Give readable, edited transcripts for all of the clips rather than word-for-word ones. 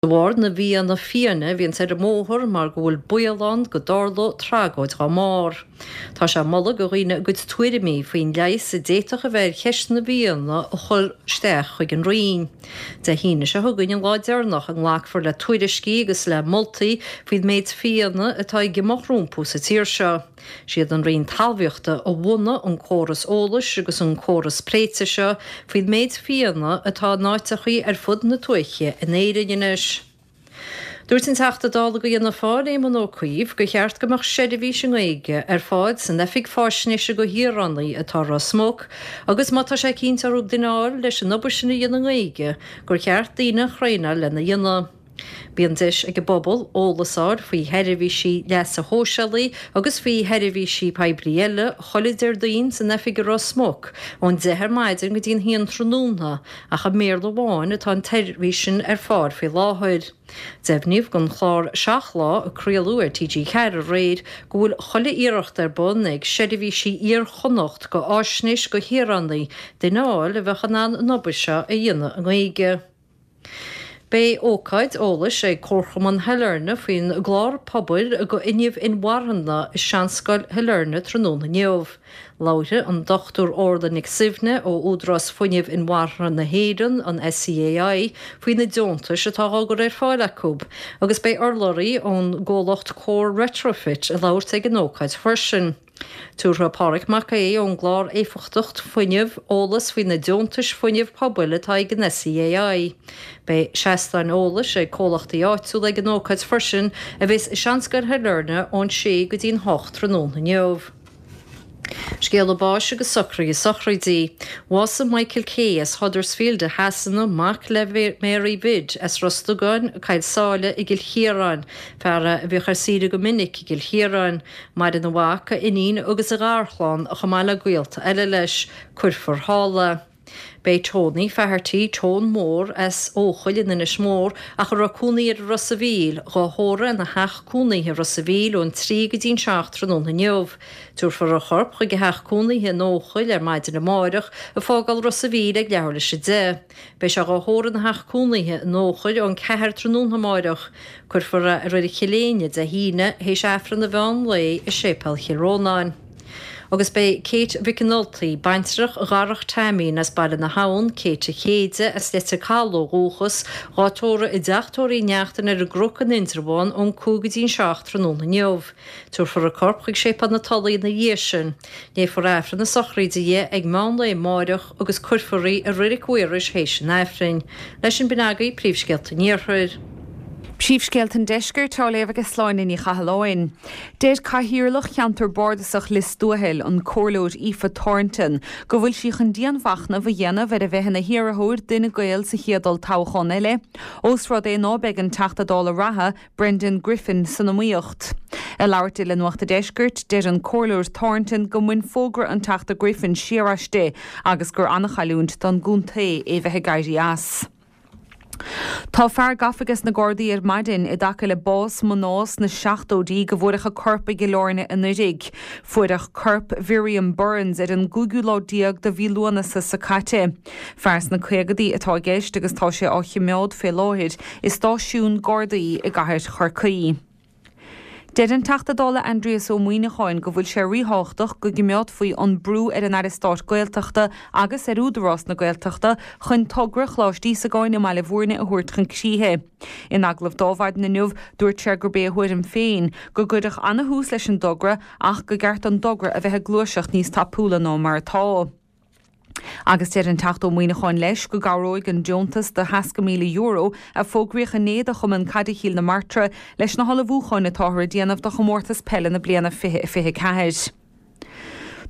De bharr na bhfianna fiáine a bhíonns ar an mbóthar mar go bhfuil baol ann go dtarlódh tragóid dhá mbarr. Tá sé ag moladh go dhaoine a gcuid tuairimí faoin leigheas a d'fhéadfadh a bheith ar cheist na bhfianna a chur isteach chuig an Roinn. Dé hAoine seo chugainn an lá deireanach a nglacfar le tuairiscí agus le moltaí faoin méid fianna atá ag imeacht rompu sa tír seo. Siad an Roinn Talmhaíochta a bhunaigh an córas eolais agus an córas pléite seo faoin méid fianna atá in áiteachaí ar fud na tuaithe in Éirinn anois. Dúirt an Teachta Dála go Fhianna Fáil, Éamon Ó Cuív, gur cheart go mbeadh seirbhís i nGaeilge ar fáil san Oifig Fáisnéise go Shaoránaigh atá i Ros Muc agus má tá sé cinnte orthu duine a fháil leis an obair sin a dhéanamh i nGaeilge gur cheart daoine a thraenáil lena dhéanamh. Bíonn deis ag an bpobal eolas a fháil faoi sheirbhísí leasa shóisialaigh agus faoi sheirbhísí poiblí eile chuile Déardaoin san oifig i Ros Muc ón 10 ar maidin go dtí an haon tráthnóna ach i mBéarla amháin atá an tseirbhís sin ar fáil faoi láthair. Deimhníodh don chlár Seacht Lá a craoladh ar TG4 aréir go bhfuil chuile iarracht ar bun ag Seirbhísí Iar-Chonnacht go Fháisnéis go Shaoránaigh duine a fháil a bheadh in ann an obair seo a dhéanamh i nGaeilge. Beidh ócáid eolais ag Comharchumann Shailearna faoin gclár pobail go fhuinneamh inmharthana i Seanscoil Shailearna tráthnóna inniu. Labharfaidh an Dr Orla Nic Suibhne ó Údarás Fuinnimh Inmharthana na hÉireann, an SEAI, faoi na deontais atá á gcur ar fáil acu agus beidh urlabhraí ón gcomhlacht Core Retrofit ag labhairt ag an ócáid freisin. Tabharfaidh Páraic Mac Aodha ón gclár Éifeachtacht Fuinnimh eolas faoi na deontais fuinnimh pobail atá ag an SEAI. Beidh seastáin eolais ag comhlachtaí áitiúla ag an ócáid freisin a bheas i Seanscoil Shailearna ón 6 go dtí'n 8 tráthnóna inniu. Scéala báis agus socruithe sochraide. Bhásaigh Michael Kay as Huddersfield i Shasana, mac le Mary Bhid as Ros Dugáin, Coill Sáile i gCill Chiaráin, fear a bhíodh ar saoire go minic i gCill Chiaráin. Maireann a mhac, a iníon agus a gharchlann, chomh maith le gaolta eile leis. Cuirfear thall é. B'é Tony Faherty, Tone Mór, as Eochaill in Inis Mór, ach a raibh cónaí air i Ros a' Mhíl, dhá thórramh ina theach cónaithe i Ros a' Mhíl ón 3 go dtí'n 7 tráthnóna inniu. Tabharfar a chorp chuig a theach cónaithe in Eochaill ar maidin amáireach, ag fágáil Ros a' Mhíl ag leathuair leis a 10. Beidh sé dhá thórramh ina theach cónaithe in Eochaill ón 4 tráthnóna amáireach. Cuirfear é i Reilig Chill Éinne Dé hAoine théis Aifreann an mheán lae i Séipéal Chill Rónáin. Agus beidh Kate Mhic an Ultaigh, baintreach Dharach Taimín as Baile na hAbhann, Kate a Chéide, as Leitir Cathail ó dhúchas, dhá tórramh i dTeach Tórraimh Uí Neachtain ar an gCnoc in Indreabhán ón 5 go dtí'n 7 tráthnóna inniu. Tabharfar a corp chuig Séipéal na Tulaí ina dhiaidh sin. Léifear Aifreann na sochraide di ag meán lae amáireach agus cuirfear í i Reilig Mhaorais théis an Aifrinn. Leis sin b'in agaibh Príomhscéalta an Iarthair. Príomhscéalta an Deiscirt á léamh ag Sláine Ní Chathalláin. Deir Cathaoirleach Cheantar Bardasach Lios Tuathail, an Comhairleoir Aoife Thornton, go bhfuil sí chun dianmhachnamh a dhéanamh ar a bheith ina hiarrthóir d'Fhine Gael sa chéad olltoghchán eile, ós rud é ná beidh an Teachta Dála reatha, Brendan Griffin san iomaíocht. Ag labhairt di le Nuacht a' Deiscirt, deir an Comhairleoir Thornton go mbain fógra an Teachta Griffin siar aisti agus gur an-chailliúint don gcontae é bheith ag éirí as. Tá fear gafa ages na Gardaí ar maidin i dtaca le bás mná sna seachtóidí go bhfuaireadh a corp i gCill Airne anuiridh. Fuaireadh corp Mhiriam Burns ar an gcúigiú lá déag de mhí Lúnasa so caite. Fear sna caogadaí atá i gceist agus tá sé á chimeád fé láthair i stáisiún Gardaí i gcathair Chorcaí. Deir an Teachta Dála Aindrias Ó Muimhneacháin go bhfuil sé ríthábhachtach go gcimeádfaí an brú ar an Aire Stáit Gaeltachta agus ar Údarás na Gaeltachta chun togra Choláiste Íosagáin i mBaile Bhúirne a thabhairt chun críche. In agallamh dó maidin inniu, dúirt sé gurb é a thuairim féin go gcuirfeadh ana-thús leis an dtogra ach go gceart don dtogra a bheith ag gluaiseacht níos tapúla ná mar atá. Agus deir an Teachta Ó Muimhneacháin leis go gcabhróidh an deontas de €60,000 a fógraíodh inné do Chumann Caide Chill na Martra leis na hullmhúcháin atáthar a déanamh do chomórtas peile na bliana 2024.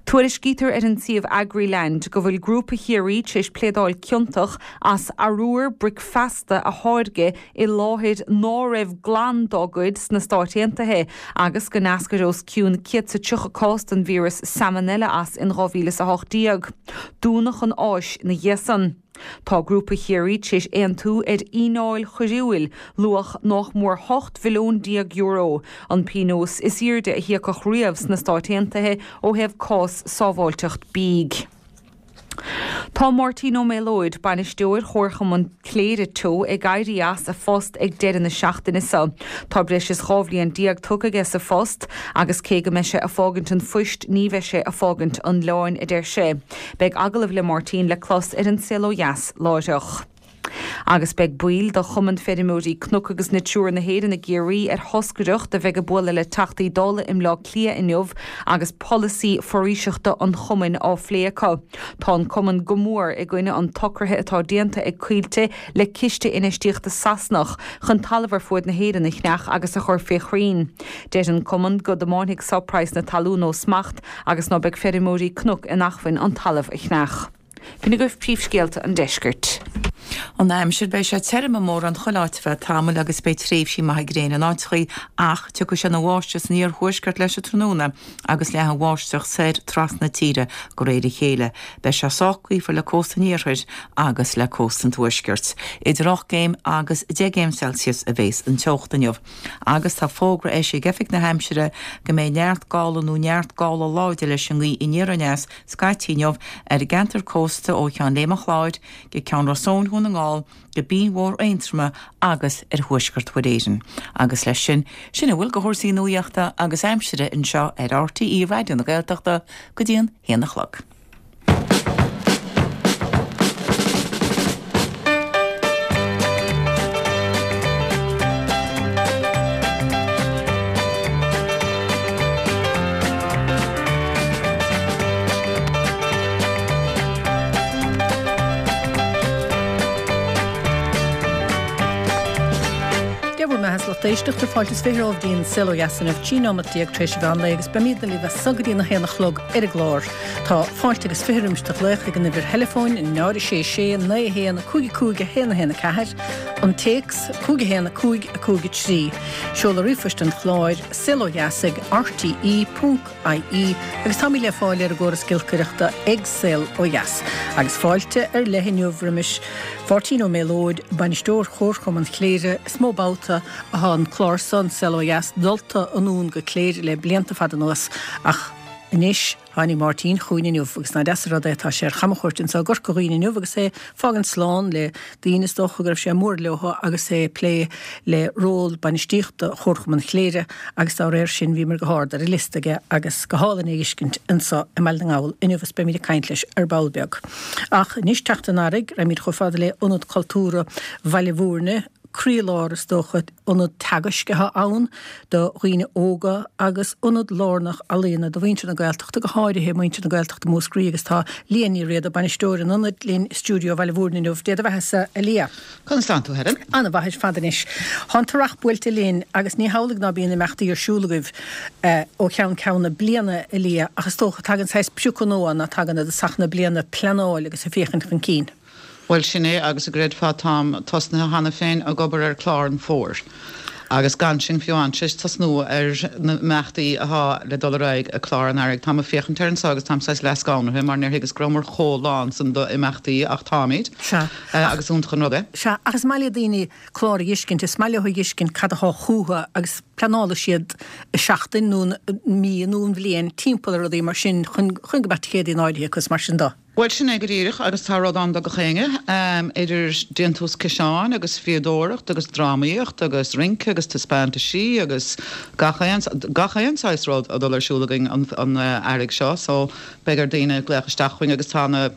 Tuairiscítear ar an suíomh Agriland go bhfuil Grúpa Chiarraí tar éis pléadáil ciontach as arbhar bricfeasta a tháirgeadh i láthair ná raibh glan dá gcuid sna Stáit Aontaithe agus go n-eascair os cionn 130 cás den víreas Salmonella as in 2018. Dúnadh an áis ina dhiaidh san. Tá Grúpa Chiarraí tar éis aontú ar fhíneáil choiriúil luach nách mór €18 mhilliún, an pionós is aoirde a híocadh riamh sna Stáit Aontaithe ó thaobh cás sábháilteacht bídh. Tá Máirtín Ó Méalóid, bainisteoir Chomharchumann Chléire Teo ag éirí as a phost ag deireadh na seachtaine seo. Tá breis is 12 bhliain tugtha aige sa phost agus cé go mbeidh sé ag fágaint an phoist ní bheidh sé ag fágaint an oileáin, a deir sé. Beidh agallamh le Máirtín le clos ar An Saol Ó Dheas láithreach. Agus beidh baill de Chumann Feirmeoirí Cnoc agus Natura na hÉireann i gCiarraí ar thoscaireacht a bheidh ag bualadh le Teachtaí Dála i mBleá Cliath inniu agus polasaí foraoiseachta an chumainn á phlé acu. Tá an cumann go mór i gcoinne an tsocraithe atá déanta ag Coillte le ciste infheistíochta Sasanach chun talamh ar fuaid na hÉireann a cheannach agus a chur fé chrainn. Deir an cumann go dtiomáinfidh so praghas na talún ó smacht agus ná beidh feirmeoirí cnoc in acmhainn an talamh a cheannach. B'in agaibh príomhscéalta an deiscirt. An aimsir, Beidh sé tirim i mórán chuile áit ar feadh tamaill agus beidh tréimhsí maithe gréine in áiteachaí ach tiocfaidh sé ina bháisteach san iarthuaisceart leis an tráthnóna agus leathfaidh an bháisteach soir trasna na tíre de réir a chéile. Beidh sé sách gaofar le cósta an iarthair agus le cósta an tuaiscirt. Idir 8 gcéim agus 10 gcéim Celsius a bhéas an teocht inniu agus tá fógra eisithe ag Oifig na hAimsire go mbeidh neart gála nó neart gála láidir leis an ngaoth aniar aneas scaití inniu ar an gceantar cósta ó Cheann Léime an Chláir go Ceann Ros Eoin Dhún na nGall go Binn Mhór Aontroma agus ar thuaisceart Mhuir Éireann. Agus leis sin, sin a bhfuil de chúrsaí nuaíochta agus aimsire anseo ar RTÉ Raidió na Gaeltachta go dtí an haon a chlog. Dia bhur mbeatha, a lucht éisteachta, fáilte is 20 romhaibh dtí'n Saol Ó Dheas inniu, 13 nóimeat tar éis an mheán lae agus beimídne libh as so go dtí an 1 a chlog ar an gclár. Tá fáilte agus 20 roimis do ghlaoch ag an uimhir theileafóin, 0 6 6 9 1 5 5 1 1 4, an téacs, 5 1 5 5 3. Seoladh ríomhphoist an chláir, saolodheas ag rte ponc ie agus táimid le fáil ar an gcóras giolcaireachta ag Saol Ó Dheas. Agus fáilte ar leith inniu roimis Mháirtín Ó Méalóid, Bainisteoir Chomharchumann Chléire. Is mó babhta athá an clár so, An Saol Ó Dheas, dulta anonn go Cléire le blianta fada anuas ach anois tháinig Máirtín chugainn inniu agus nach deas an rud é, tá sé ar chamchuairt anso i gCorca Dhuibhne inniu agus é ag fágaint slán le daoine is dócha go raibh sé mór leo agus é ag plé le ról bainistíochta Chomharchumann Chléire agus dá réir sin bhíomar go hard ar an liosta aige agus go hálainn é a fheiscint anso i mBaile na nGall inniu is beimid ag caint leis ar ball beag. Ach anois teacht an Earraigh, raghaimid chomh fada le Ionad Cultúrtha Bhaile Bhúirne, croílár is dócha, ionad teagaisc atá ann do dhaoine óga agus ionad lárnach ealaíona do mhuintir na Gaeltachta, go háirithe muintir na Gaeltachta Mhúscraí agus tá Liadh Ní Riada, bainisteoir an ionaid, linn i stiúideo Bhaile Bhúirne inniu. Dé do bheatha-sa, a Liadh. Conas tánn tú, Helen? An-mhaith ar fad anois. Tá an t-earrach buailte linn agus ní hamhlaidh ná bíonn imeachtaí ar siúl agaibh ó cheann ceann na bliana, a Liadh, ach is dócha tagann saghas priocadh nua ann ná tagann i dtosach na bliana, pleanáil agus ag féachaint chun cinn. Bhuel, sin é, agus an gcreidfeá táim tosnaithe cheana féin ag obair ar chlár an fhómhair. Agus gan sinn fiú amháin tar éis tosnú ar na imeachtaí athá le dul ar aghaidh i clár an earraigh. Táim ag féachaint air anso agus táim saghas leath-scanraithe mar níor thuigeas go rabhamar chomh lán san d'imeachtaí ach táimid. Sea. Agus iontach an rud é. Sea, ach is maith le daoine clár a fheiscint, is maith leo a fheiscint cad athá chútha agus pleanálfaidh siad an seachtain nó an mí nó an bhliain timpeall ar rudaí mar sin chun chun go mbeadh ticéadaí in áirithe acu is mar sin do. Bhuel, sin é go díreach, agus tá rud ann do gach éinne, idir déantús ciseáin agus fíodóireacht agus drámaíocht agus rince agus taispeántaisí agus gach aon, gach aon saghas rud a dul ar siúl againn an earraigh seo, so beidh ar daoine glaoch isteach chugainn agus tá na,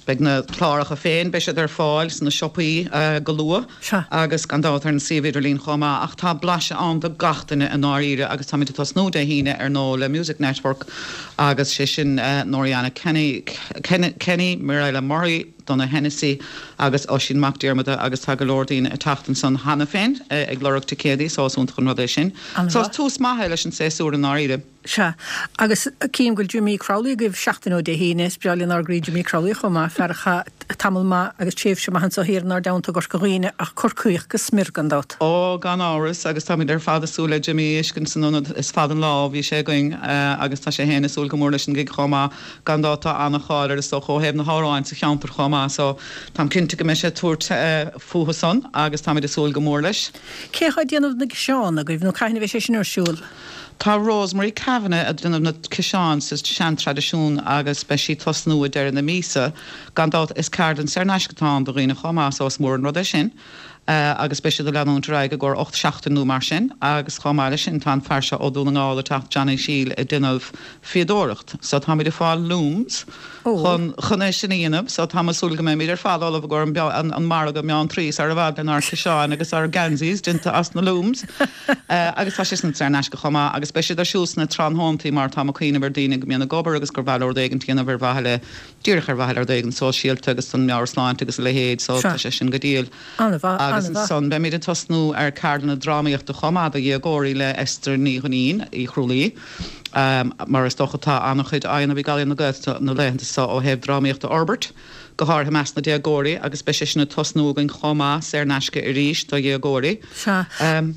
beidh na cláracha féin, beidh siad ar fáil sna siopaí go luath. Sea. Agus gan dabht ar an suíomh idirlín chomh maith. Ach tá blaiseadh ann do gach duine i ndáiríre agus táimid ag tosnú Dé hAoine ar ndóigh le Music Network agus sé sin Noriana Kenny, Kenny, Mirella Murray, Donagh Hennessy agus Oisín Mac Diarmada agus tá go leor daoine ag teacht ansan cheana féin ag lorg ticéadaí so is iontach an rud é sin. So is tús maith é leis an séasúr i ndáiríre. Sea, agus cím go bhfuil Jimí Crowley agaibh seachtain ó Dé hAoine. Is breá lenár gcroí Jimí Crowley chomh maith, fear a chaith tamall maith agus tréimhse maith anso thiar inár dteannta i gCorca Dhuibhne, ach Corcaíoch go smior gan dabht. Ó, gan amhras, agus táimid ar fad ag súil le Jimí a fheiscint san ionad. Is fada an lá ó bhí sé againn agus tá sé féin ag súil go mór leis an gig chomh maith. Gan dabht tá an-cháil air is dócha ó thaobh na hamhráin sa cheantar chomh maith so táim cinnte go mbeidh sé ag tabhairt fúthu san agus táimid ag súil go mór leis. Cé atá ag déanamh na gciseán agaibh nó cathain a bheidh sé sin ar siúl? Tá Rosemary Kavanagh ag déanamh na ciseáin sa sean-traidisiún agus beidh sí ag tosnú ag deireadh na míosa. Gan dabht is ceardlann saor in aisce atá ann do dhaoine chomh maith so is mór an rud é sin agus beidh siad ag leanúint ar aghaidh i gcomhair 8 seachtain nó mar sin agus chomh maith leis sin tá an fear seo ó Dún na nGall ag teacht Johnny Shiel ag déanamh fíodóireacht so táimid ag fáil looms chun chun é sin a dhéanamh so tá mé ag súil go mbeimid ar fad ullamh i gcomhair an an margadh meán trí sar i bhfad lenár ciseáin agus ár geansaís déanta as na looms agus tá sé sin saor in aisce chomh maith agus beidh siad ar siúl sna tráthnóntaí mar tá mé ag cuimhneamh ar daoine go mbíonn ag obair agus gur mhaith leo rud éigin a dhéanamh ar mhaithe le díreach ar mhaithe le rud éigin sóisialta agus don meabhairshláinte agus a leithéid so tá sé sin go diail. An-mhaith, Agus an-mhaith. ansan beimid ag tosnú ar ceardlanna drámaíochta chomh maith do dhéagóirí le Esther Ní Dhuinnín, Uí Chrualaoi. Mar is dócha tá an-chuid á dhéanamh ag Ealaíon na Gaeltachta na laethanta so ó thaobh drámaíocht a fhorbairt, go háirithe i measc na déagóirí agus beidh sé sin ag tosnú againn chomh maith, saor in aisce arís do dhéagóirí. Sea,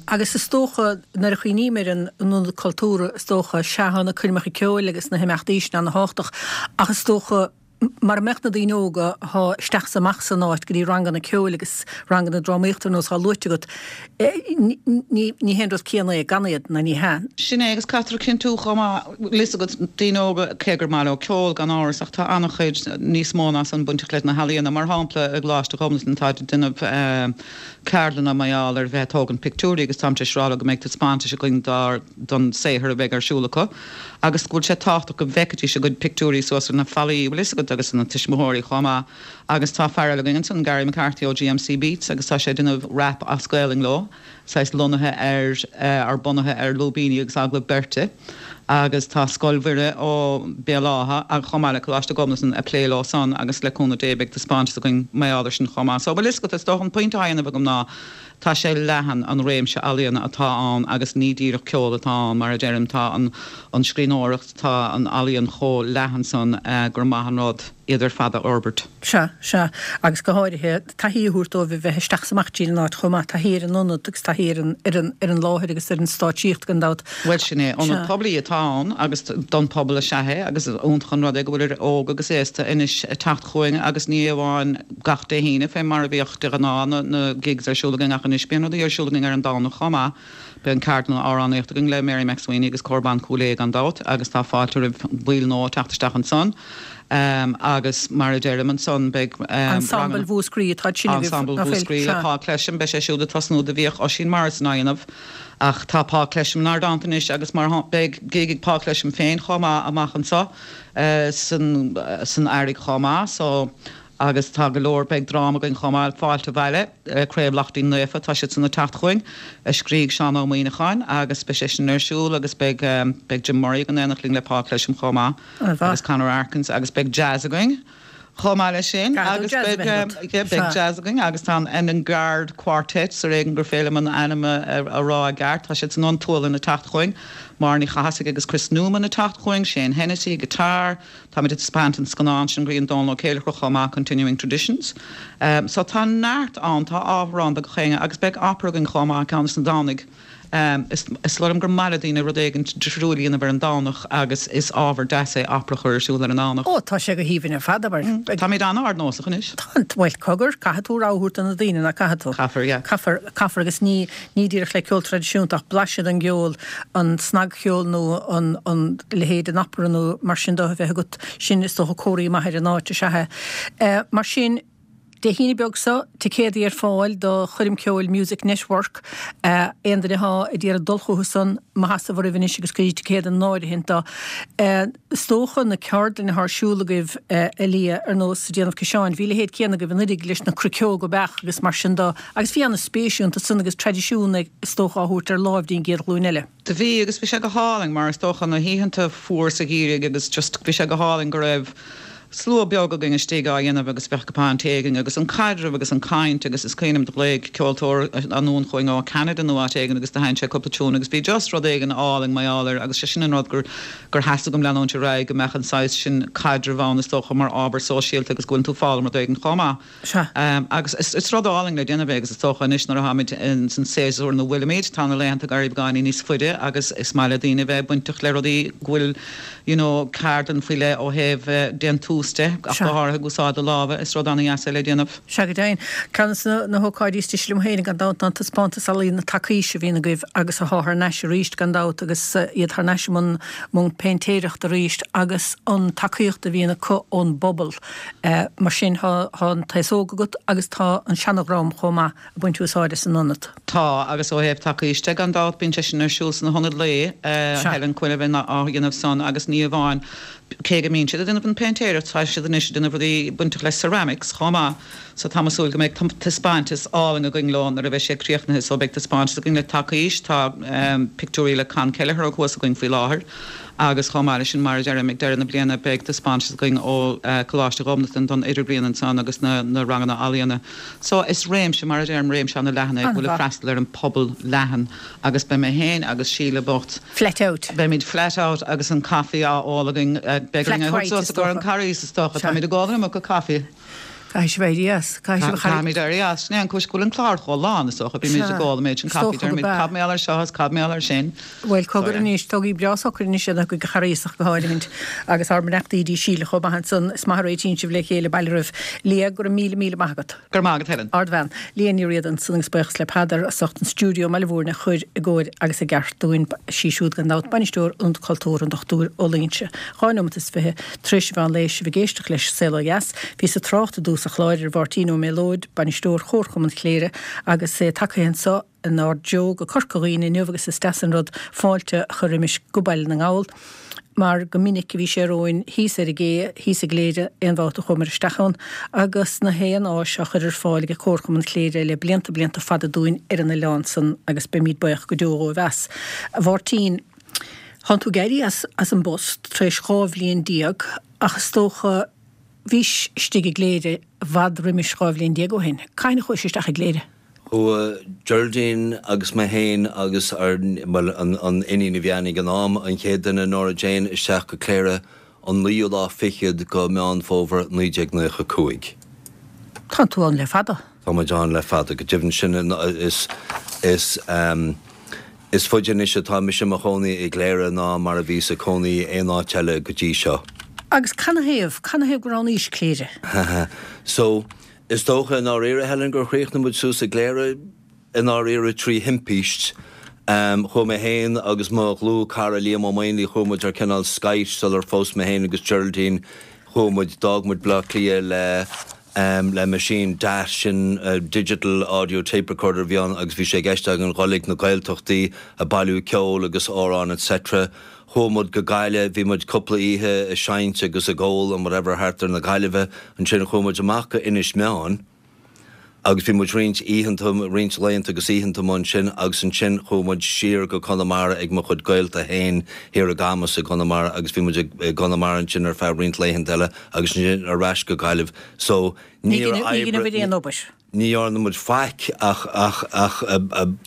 agus is dócha, nuair a chuimhním ar an Ionad Cultúrtha, is dócha, sea, tá na coirmeacha ceoil agus na himeachtaí sin ana-thábhachtach, ach is dócha, mara mbeadh na daoine óga athá isteach is amach san áit go dtí ranganna ceoil agus ranganna drámaíochta ar nós athá luaite agat, ní hé an rud céanna é gan iad, ná ní hea. Sin é, agus caithfear a chinntiú chomh maith, bhfuil fhios agat, daoine óga, cé gur maith leo ceol, gan amhras, ach tá an-chuid níos mó ná san bainteach leis na healaíona. Mar shampla, i gColáiste Ghobnatan táid ag déanamh ceardlanna mar gheall ar bheith ag tógaint pictiúirí agus táim tar éis rá leo go mbeidh taispeántais againn dár, don saothar a bheidh ar siúl acu agus go bhfuil sé tábhachtach go bhfeicfidís a gcuid pictiúirí suas ar na fallaí, bhfuil fhios agat, agus na tuismitheoirí chomh maith. Agus tá fear eile againn ansan, Gary McCarthy ó GMC Beats agus tá sé ag déanamh rap as Gaelainn leo, saghas lonnaithe ar, ar bunaithe ar lúibíní agus agallamh beirte. Agus tá Scoil Mhuire ó Béal Átha agus chomh maith le Coláiste Ghobnatan ag plé leo san agus le cúnamh Dé beidh taispeántas againn mar gheall air sin chomh maith. So bhfuil fhios agat, is dócha an pointe atá á dhéanamh agam ná, Tá sé leathan, an réimse ealaíona atá ann agus ní díreach ceol atá ann, mar a deirim, tá an an scríbhneoireacht, tá an ealaíon chomh leathan san gur maith an rud iad ar fad a fhorbairt. Sea, sea. Agus go háirithe, taithí a thabhairt dóibh a bheith isteach is amach tríd an áit chomh maith, taithí ar an ionad agus taithí ar an, ar an, ar an láthair agus ar an stáitsíocht gan dabht. Bhuel, sin é. Ionad poiblí atá ann agus don phobal is ea é agus is iontach an rud é go bhfuil idir óg agus aosta anois ag teacht chugainn agus ní amháin gach Dé hAoine fé mar a bhíodh de ghnáth na gigs ar siúl againn ach anois bíonn rudaí ar siúl againn ar an Domhnach chomh maith. Beidh an ceardlann amhránaíochta againn le Mary MacSwiney agus Cór Ban Chúil Aodha gan dabht agus tá fáilte roimh bhaill nua teacht isteach ansan agus mar a deirim ansan beidh Ensemble Mhúscraí atá sin agaibh, Ensemble Mhúscraí le Paul Clesham, beidh sé siúd ag tosnú do bhíodh Oisín Morrison á dhéanamh ach tá Paul Clesham inár dteannta anois agus mar beidh gig ag Paul Clesham féin chomh maith amach anso san san Earraigh chomh maith so Agus tá go leor, beidh dráma againn chomh maith, Fáilte Abhaile, Craobh Laichtín Naofa, tá siad san ag teacht chugainn, a scrígh Seán Ó Muíneacháin agus beidh sé sin ar siúl agus beidh, beidh Jim Murray ag an aonach linn le Paul Clesham chomh maith agus Conor Arkins agus beidh jazz againn chomh maith leis sin agus beidh, yeah, beidh jazz againn agus tá an Enengard Quartet, ar éigean gur féidir liom an ainm a rá i gceart, tá siad san ón tSualainn ag teacht chugainn, Máire Ní Chathasaigh agus Chris Newman ag teacht chugainn, Shane Hennessy, guitar, Táimid ag taispeáint an scannán sin Grian Dónal Ó Céilleachair chomh maith, Continuing Traditions. So tá neart ann, tá ábhar ann do gach éinne agus beidh opera againn chomh maith ceann des na Domhnaigh. Is is dóigh liom gur maith le daoine rud éigin difriúil a dhéanamh ar an Domhnach agus is ábhar deas é opera a chur ar siúl ar an Domhnach. Ó, tá sé go haoibhinn ar fad, abair. Táimid an-ardnósach anois. Tá, bhuel, cogar, caithfidh tú rogha a thabhairt do na daoine, nach gcaithfidh tú? Caithfear, yeah. Caithfear, caithfear agus ní, ní díreach le ceol traidisiúnta ach blaiseadh den gceol, an snagcheol nó an an leithéid den opera nó mar sin de a bheith agat, sin is dócha comhartha maith ar an áit is ea é. Mar sin, Dé hAoine beag seo, ticéadaí ar fáil do choirm ceoil Music Network. Aon duine athá ag iarraidh dul chucu san, mo sheasamh oraibh anois agus cuirigí ticéad in áirithint do. Is dócha na ceardlanna athá ar siúl agaibh, a Liadh, ar nós déanamh ciseáin, bhí a leithéid céanna agaibh anuiridh leis na cruiceoga beach agus mar sin de. Agus bhí ana-spéis iontu san agus traidisiún, is dócha, á thabhairt ar láimh dtí'n gcéad ghlúin eile. Do bhí, agus bhí sé go hálainn, mar is dócha na hoícheanta fuar sa gheimhreadh agus just bhí sé go hálainn go raibh slua beag againn istigh á dhéanamh agus bheadh cupán tae againn agus an caidreamh agus an caint agus is cuimhin liom do ghlaoigh ceoltóir anonn chugainn ó Canada nó áit éigin agus do sheinn sé cúpla tiún agus bhí just rud éigin álainn mar gheall air agus sé sin an rud gur gur theastaigh uaim leanúint ar aghaidh go mbeadh an saghas sin caidrimh ann is dócha mar ábhar sóisialta agus go bhfuileann tú ag foghlaim rud éigin chomh maith. Sea. Agus is rud álainn le déanamh é agus is dócha anois nuair atáimid san séasúr ina bhfuilimid, tá na laethanta ag éirí beagáinín níos faide agus is maith le daoine a bheith bainteach le rudaí go bhfuil you know ceardlann faoi leith ó thaobh déantús. tús de, ach go háirithe ag úsáid do lámha, is rud ana-dheas é le déanamh. Sea, go deimhin. Ceann de na hócáidí is deise liom féin, gan dabht, ná an taispeántas ealaíona Tacaois a bhíonn agaibh agus atá thar n-ais arís, gan dabht, agus iad thar n-ais i mbun péintéireachta arís agus an tacaíocht a bhíonn acu ón bpobal. Mar sin, tá an t-aos óg agat agus tá an seana-dhream chomh maith ag baint úsáide as an ionad. Tá, agus ó thaobh Tacaois de, gan dabht, bíonn sé sin ar siúl sna hionaid lae, Helen Quinn a bhíonn á dhéanamh san agus ní amháin, cé go mbíonn siad ag déanamh an péintéireacht, tá siad anois ag déanamh rudaí bainteach le ceramics chomh maith. So tá mé ag súil go mbeidh taispeántas álainn againn leo nuair a bheidh sé críochnaithe. So beidh taispeántas againn le Tacaois, tá pictiúirí le Con Kelleher thuas againn faoi láthair agus chomh maith leis sin, mar a deirim, ag deireadh na bliana beidh taispeántas againn ó Coláiste Ghobnatan don Idirbhliain ansan agus na ranganna ealaíona. So is réimse, mar a deirim, réimse ana-leathan é go bhfuil ag freastal ar an pobal leathan agus beidh mé féin agus Síle bocht, Flat out. Beimid flat out agus an caife á ól againn. Beidh orainn é a thabhairt suas i gcomhair an Carghais is dócha. Táimid ag ól an iomarca caife. Caithfidh sibh éirí as. Caithfidh sibh a Caithfimid éirí as. Sin é an cúis go bhfuil an clár chomh lán, is dócha. Bímid ag ól an méid sin caife. Deirimid cad mar gheall air seo is cad mar gheall air sin. Bhuel, cogar anois, tógaigí breá socair anois iad chuig an Charghas ach go háirithint. Agus ár mbeannachtaí dtí Síle chomh maith ansan. Is maith a réitíonn sibh le chéile, bail oraibh. Liadh, go raibh míle, míle maith agat. Go raibh maith agat, Helen. Ardbhean. Liadh Ní Riada ansan agus buíochas le Peadar as ucht an stiúideo i mBaile Mhúirne a chur i gcóir agus i gceart dúinn. Sí siúd gan dabht Bainisteoir Ionad Cultúrtha an Dr Ó Loingsigh. 2 nóimeat is 20 tar éis an mheán lae sibh ag éisteacht leis Saol Ó Dheas. Bhíos ag trácht i dtús an chláir ar Mháirtín Ó Méalóid, Bainisteoir Chomharchumann Chléire agus é tagtha anso inár dtreo go Corca Dhuibhne inniu agus is deas an rud fáilte a chur roimis go Baile na nGall mar go minic a bhí sé romhainn thíos ar an gcé thíos i gCléire aon bhabhta a chuamar isteach ann agus na haon áis á chur ar fáil ag Comharchumann Chléire le blianta blianta fada dúinn ar an oileán san agus beimíd buíoch go deo dhóibh as. A Mháirtín, thánn tú ag éirí as as an bpost tar éis 12 bhliain ach is dócha bhís istigh i gCléire i bhfad roimis 12 bhliain ó shin. Cathain a chuais isteach i gCléire? Chuaigh Geraldine agus mé féin agus ár, bhuel, an iníon a bhí againn ag an am, an chéad duine, Nora Jane, isteach go Cléire an naoú lá fichead go Meán Fómhair 1995. Tá tú ann le fada. Tá muid ann le fada, go deimhin. Sin, is, is, is faide anois atá mise i mo chónaí i gCléire ná mar a bhíos ag cónaí aon áit eile go dtí seo. Agus canathaobh, canathaobh gur roghnaís Cléire? So, Is dócha i ndáiríre, Helen, gur chríochnaigh muid suas i gCléire i ndáiríre trí thimpist. Chuaigh mé féin agus mo dhlúth-chara Liam Ó Maonlaí, chuaigh muid ar cineál skite sular phós mé féin agus Geraldine. Chuaigh muid, d'fhág muid Bleá Cliath le le meaisín DAT, sin Digital Audio Tape Recorder a bhí ann agus bhí sé i gceist againn dhul ag na Gaeltachtaí ag bailiú ceoil agus amhráin etc. Chuaigh muid go Gaillimh, bhí muid cúpla oíche ag seinnt agus ag ól and whatever thart ar na Gaillimhe. Ansin chuaigh muid amach go Inis Meáin agus bhí muid roinnt oícheanta, roinnt laethanta agus oícheanta amuigh ansin agus ansin chuaigh muid siar go Conamara ag mo chuid gaolta féin thiar i gCamus i gConamara agus bhí muid i gConamara ansin ar feadh roinnt laethanta eile agus ansin ar ais go Gaillimh. So níor oibrigh. Ní dhearna muid faic ach ach ach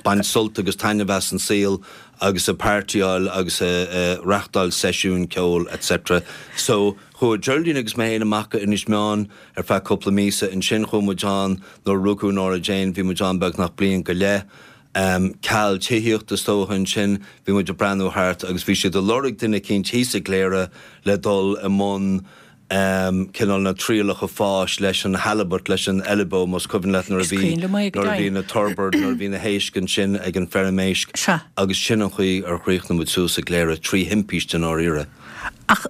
baint sult agus taitneamh as an saol agus ag pairtíáil agus ag reachtáil seisiúin ceoil etc. So chuaigh Geraldine agus mé féin amach go Inis Meáin ar feadh cúpla míosa. Ansin chuaigh muid ann nuair a rugadh Nora Jane, bhí muid ann beagnach bliain go leith. Ceal tithíochta is dócha ansin, bhí muid ag breathnú thart agus bhí siad ag lorg duine eicínt thíos i gCléire le dul i mbun cineál na trialacha fáis leis an halibut, leis an eilbeo, más cuimhin leat nuair a bhí, nuair a bhí na turbot, nuair a bhí na héisc ansin ag an feirm éisc agus sin an chaoi ar chríochnaigh muid suas i gCléire, trí thimpist i ndáiríre. Ach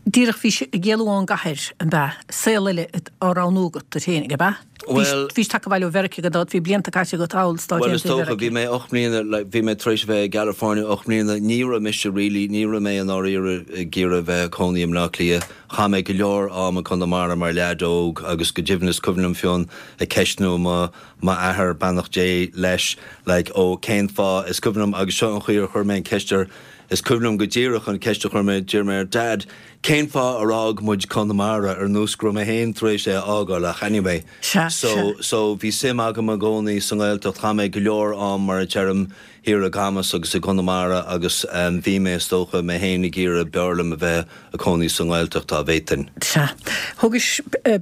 díreach bhís ag éalú ón gcathair, an b'ea? Saol eile á roghnú agat duit féinig, ab ea? Bhuel. Bhís tagtha abhaile ó Mheiriceá gan dabht, bhí blianta caite agat thall sna Stáit Bhuel, is dócha, bhí mé 8 mbliana, like, bhí mé tar éis a bheith i gCalifornia 8 mbliana, ní raibh mise really, ní raibh mé i ndáiríre ag iarraidh a bheith ag cónaí i mBleá Cliath. Chaith mé go leor am i gConamara mar leaid óg agus go deimhin is cuimhin liom Fionn ag ceistniú mo, m'athair, beannacht Dé leis, like, ó cén fáth, is cuimhin liom, agus seo an chaoi ar chuir mé an ceist air, is cuimhin liom go díreach an ceist a chuir mé, d'iarr mé air, Dad, Cén fáth ar fhág muid Conamara ar nós go raibh mé féin tar éis é a fhágáil ach anyway. Sea, So, sea. so bhí suim agam i gcónaí sa nGaeltacht, chaith mé go leor am mar a deirim thiar i gCamus agus i gConamara agus bhí mé is dócha mé féin ag iarraidh b'fhearr liom a bheith ag cónaí sa nGaeltacht dá bhféadfainn. Sea. Thógais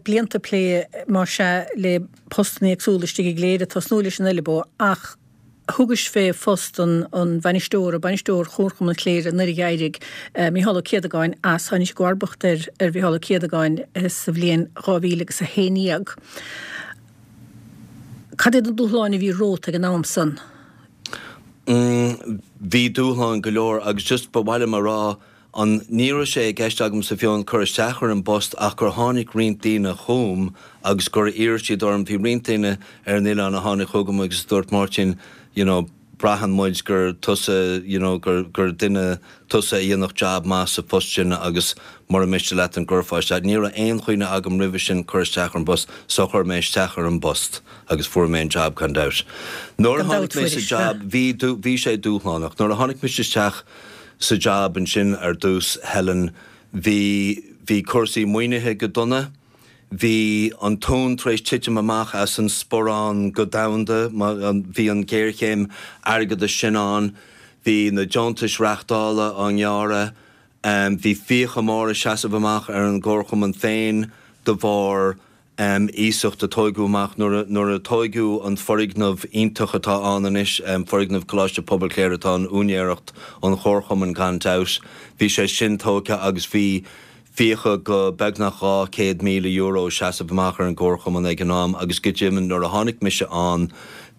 blianta plé más ea le postanna éagsúla istigh i gCléire, tosnú leis an Eilbeo ach. Thugais fé phost an bhainisteora, bainisteoir Chomharchumann Chléire nuair a d'éirigh Mícheál Ó Céadagáin as. Tháinig i gcomharbacht ar ar Mhícheál Ó Céadagáin sa bhliain 2000 agus 11. Cad iad na dúshláin a bhí romhat ag an am san? Bhí dúshláin go leor agus just ba mhaith liom a rá An, ní raibh sé i gceist agamsa fiú amháin cur isteach ar an bpost ach gur tháinig roinnt daoine chugam agus gur iarr siad orm, bhí roinnt daoine ar an oileán a tháinig chugam agus a dúirt Máirtín, you know, braitheann muid gur tusa, you know, gur, gur duine tusa a dhéanfadh jab maith sa phost sin agus mura miste leat an gcuirfeá isteach. Ní raibh aon chuimhne agam roimhe sin cur isteach ar an bpost so chuir mé isteach ar an bpost agus fuair mé an jab gan dabht. Nuair a tháinig mé sa jab bhí, bhí sé dúshlánach. Nuair a tháinig mise isteach, sa jab ansin ar dtús, Helen, bhí, bhí cúrsaí maoinithe go dona, bhí an tóin tar éis titim amach as an sporán go domhanda, bhí an ghéarchéim airgeadais sin ann, bhí na deontais reáchtála á ngearradh, bhí fiacha móra ag seasamh amach ar an gComharchumann féin de bharr iasacht a tóigeadh amach nuair a tóigeadh an foirgneamh iontach atá ann anois, foirgneamh Coláiste Pobail Chléire atá in úinéireacht an Chomharchumainn gan dabht. Bhí sé sin tógtha agus bhí fiacha go beagnach €200,000 ag seasamh amach ar an gComharchumann ag an am agus go deimhin nuair a tháinig mise ann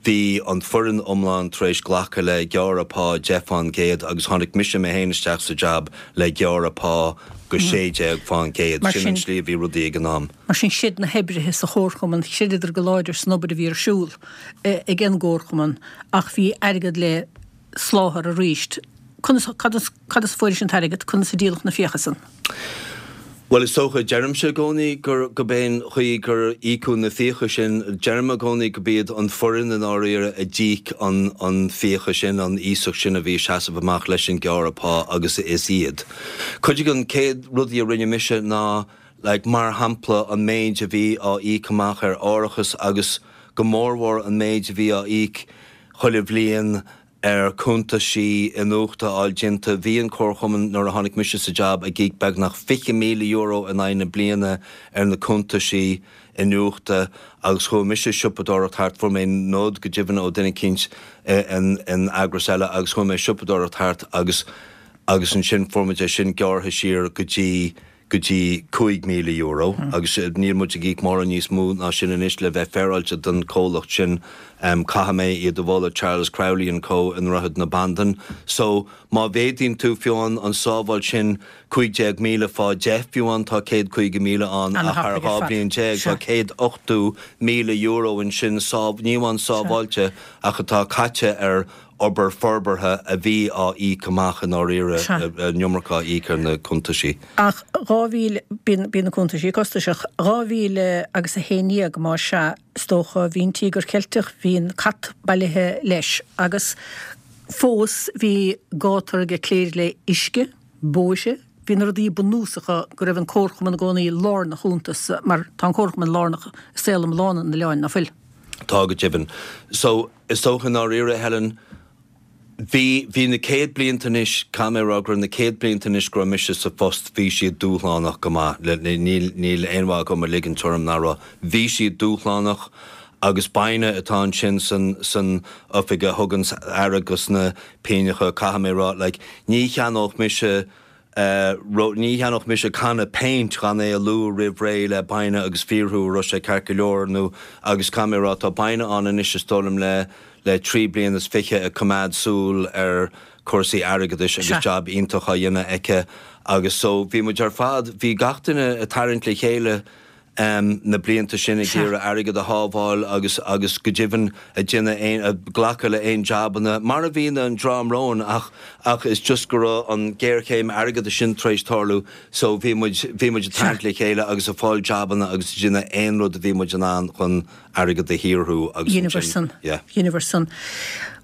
bhí an foireann iomlán tar éis glacadh le gearradh pá 10% agus tháinig mise mé féin isteach sa jab le gearradh pá go 16%. Sin an tslí a bhí rudaí ag an am. Mar sin, chreid na hoibrithe sa chomharchumann, chreideadar go láidir san obair a bhí ar siúl ag an gcomharchumann ach bhí airgead le soláthar arís. Conas, cad as, cad as a fuairis an t-airgead? Conas a díoladh na fiacha san? Bhuel, is dócha, deirimse i gcónaí gur, gurb é an chaoi gur íocadh na fiacha sin, deirim i gcónaí gurb iad an foireann i ndáiríre a d'íoc an, an fiacha sin, an iasacht sin a bhí ag seasamh amach leis an gearradh pá agus is iad. Cuid de na céad rudaí a rinne mise ná, like, mar shampla, an méid a bhí á íoc amach ar árachas agus go mórmhór an méid a bhí á íoc chuile bhliain ar cuntaisí iniúchta a fháil déanta. Bhí an Comharchumann, nuair a tháinig mise sa jab, ag íoc beagnach €20,000 in aghaidh na bliana ar na cuntaisí iniúchta agus chuaigh mise ag siopadóireacht thart, fuair mé nod go deimhin ó duine eicínt in eagras eile agus chuaigh mé ag siopadóireacht thart agus agus ansin fuair muid é sin gearrtha siar go dtí go dtí €5,000 agus níl muid ag íoc mórán níos mó ná sin anois le bheith féaráilte don chomhlacht sin. Caithfidh mé iad a mholadh, Charles Crowley and Co i nDroichead na Bandan. So, má mhéadaíonn tú fiú amháin an sábháil sin 15,000 fá 10 fiú amháin tá 150,000 ann ach thar 12 bliain tá €180,000 ansin ní amháin sábháilte ach atá caite ar obair forbartha a bhí á íoc amach i ndáiríre, an iomarca á íoc ar na cuntaisí. Ach 2000, bíonn, bíonn na cuntaisí costasach. 2000 agus 11, más ea, is dócha, bhí an Tíogar Ceilteach, bhí an cat bailithe leis agus fós bhí gátar ag Cléire le uisce, bóithre, bhí na rudaí bunúsacha go raibh an Comharchumann i gcónaí lárnach iontu, mar tá an Comharchumann lárnach i saol iomlán an oileáin, ná fuil? Tá go deimhin. So, Is dócha i ndáiríre, Helen, bhí, bhí na céad blianta anois, caithfidh mé a rá go raibh na céad blianta anois go raibh mise sa phost, bhí siad dúshlánach go maith, níl, níl aon mhaith agam a ligint orm nach raibh. Bhí siad dúshlánach agus Baina atá ansin san, san oifig a thuganns aire dos na pingneacha, caithfidh mé a rá, like, ní cheannódh mise, Ní cheannódh mise canna péint gan é a lua roimh ré le Baina agus fiafraí an raibh sé ceart go leor nó agus caithfidh mé a rá tá Baina ann anois is dóigh liom le le 23 bliana ag coimeád súil ar cúrsaí airgeadais agus jab iontach á dhéanamh aici agus so bhí muid ar fad bhí gach duine ag tarraingt le chéile na blianta sin ag iarraidh airgead a shábháil agus agus go deimhin ag déanamh aon ag glacadh le aon jabanna mar a bhíonn an dream romhainn ach ach is just go raibh an géarchéim airgeadais sin tar éis tarlú so bhí muid bhí muid ag tarraingt le chéile agus ag fáil jabanna agus ag déanamh aon rud a bhí muid in ann chun airgead a shaothrú agus Dheineabhair san. yeah. Dheineabhair san.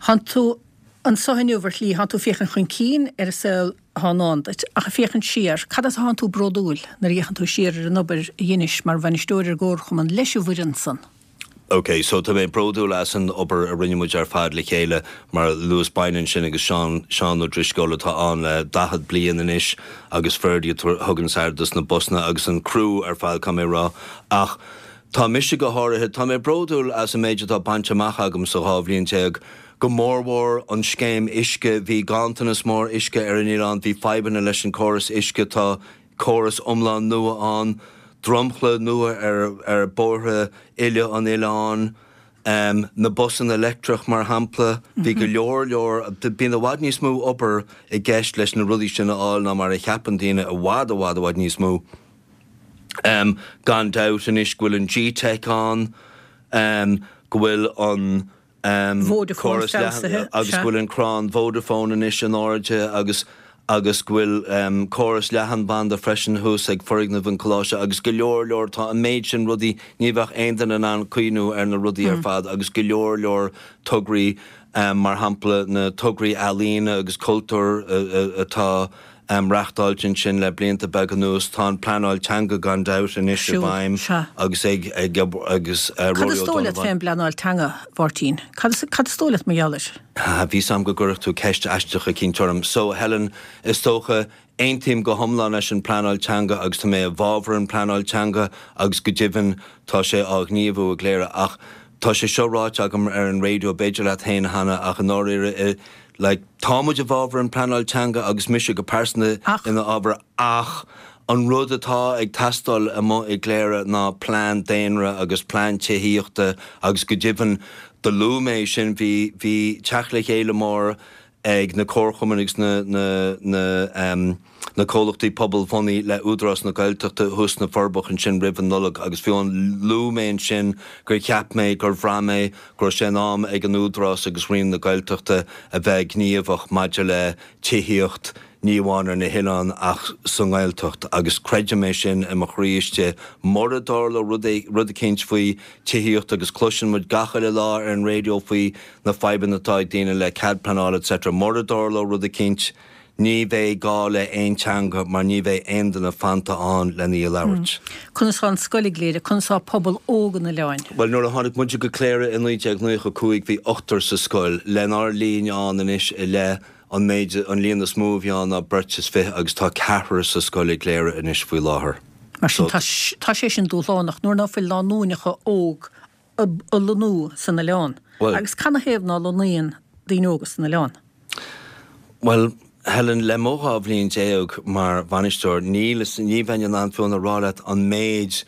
Thánn tú anso inniu ar shlí, thánn tú ag féachaint chun cinn ar an saol atá i ndán duit. Ach ag féachaint siar, cad as atánn tú bródúil nuair a fhéachann tú siar ar an obair a dheinis mar bhainisteoir ar an gComharchumann leis an bhfoireann san? Ok, so tá mé bródúil as an obair a rinne muid ar fad le chéile, mar a luas Baina ansin agus Seán, Seán Ó Drisceoil atá ann le 40 bliain anois agus Ferdia a thugann aire dos na busanna agus an criú ar fad, caithfidh mé a rá. Ach tá mise go háirithe, tá mé bródúil as an méid atá bainte amach agam sa 12 bhliain. Go mórmhór an scéim uisce, bhí ganntanas mór uisce ar an oileán, bhí fadhbanna leis an córas uisce, tá córas iomlán nua ann, dromchla nua ar ar bóithre uile an oileáin, na busanna leictreach mar shampla, bhí go leor leor, bíonn i bhfad níos mó obair i gceist leis na rudaí sin a fháil ná mar a cheapann daoine, i bhfad i bhfad i bhfad níos mó. Gan dabht anois go bhfuil an GTeic ann, go bhfuil an Vodafone feabhsaithe, agus go bhfuil an crann Vodafone anois in airde agus agus go bhfuil córas leathanbhanda freisin thuas ag foirgneamh an choláiste agus go leor leor, tá an méid sin rudaí, ní bheadh aon duine in ann cuimhniú ar na rudaí ar fad agus go leor leor tograí, mar shampla na tograí ealaíne agus cultúir atá reachtáilte ansin le blianta beaga anuas. Tá an pleanáil teanga gan dabht anois i bhfeidhm agus ag agus Cad Rory is dóigh leat O'Donovan. fén bpleanáil teanga, a Mháirtín? Cad is cad is dóigh leat mar gheall air? Bhí 'fhios a'm go gcuirfeadh tú ceist aisteach eicínt orm. So, Helen, is dócha, aontaím go hiomlán leis an bpleanáil teanga agus tá mé i bhfabhar an pleanáil teanga agus go deimhin tá sé á ghníomhú i gCléire ach tá sé seo ráite agam ar an raidió, b'fhéidir leat féin cheana ach i ndáiríre i, Like, tá muid i bhfabhar an pleanáil teanga agus mise go pearsanta ina fhabhar ach an rud atá ag teastáil amuigh i gCléire ná plean daonra agus plean tithíochta agus go deimhin do luaigh mé sin, bhí, bhí teacht le chéile mór ag na comharchumainn agus na, na, na, ehm, na comhlachtaí pobalbhunaithe le Údarás na Gaeltachta thuas sna Forbacha ansin roimh an Nollaig agus fiú amháin luaigh mé ansin gur cheap mé, gur bhraith mé go raibh sé in am ag an Údarás agus Roinn na Gaeltachta a bheith gníomhach maidir le tithíocht ní amháin ar na hoileáin ach sa nGaeltacht agus creidim é sin i mo chroí istigh. Mura dtarlóidh rud rud eicínt faoi tithíocht agus cloiseann muid gach uile lá ar an raidió faoi na fadhbanna atá ag daoine le cead pleanála etc. Mura dtarlóidh rud eicínt Ní bheidh gá le aon teanga mar ní bheidh aon duine fanta ann lena í a labhairt. Conas tá an scoil i gCléire? Conas tá pobal óg an oileáin? Bhuel, nuair a tháinig muide go Cléire i 1995 bhí ochtar sa scoil. Lenár linn ann anois i leith, an méid, an líon is mó a bhí ann ná beirt is fiche agus tá ceathrar sa scoil i gCléire anois faoi láthair. Mar sin, tá, tá sé sin dúshlánach nuair ná fuil lánúineacha óg ag lonnú san oileán. Agus canathaobh ná lonnaíonn daoine óga san oileán? Bhuel, Helen, le mo 12 bhliain mar bhainisteoir, níl, ní bheinn in ann fiú a rá leat an méid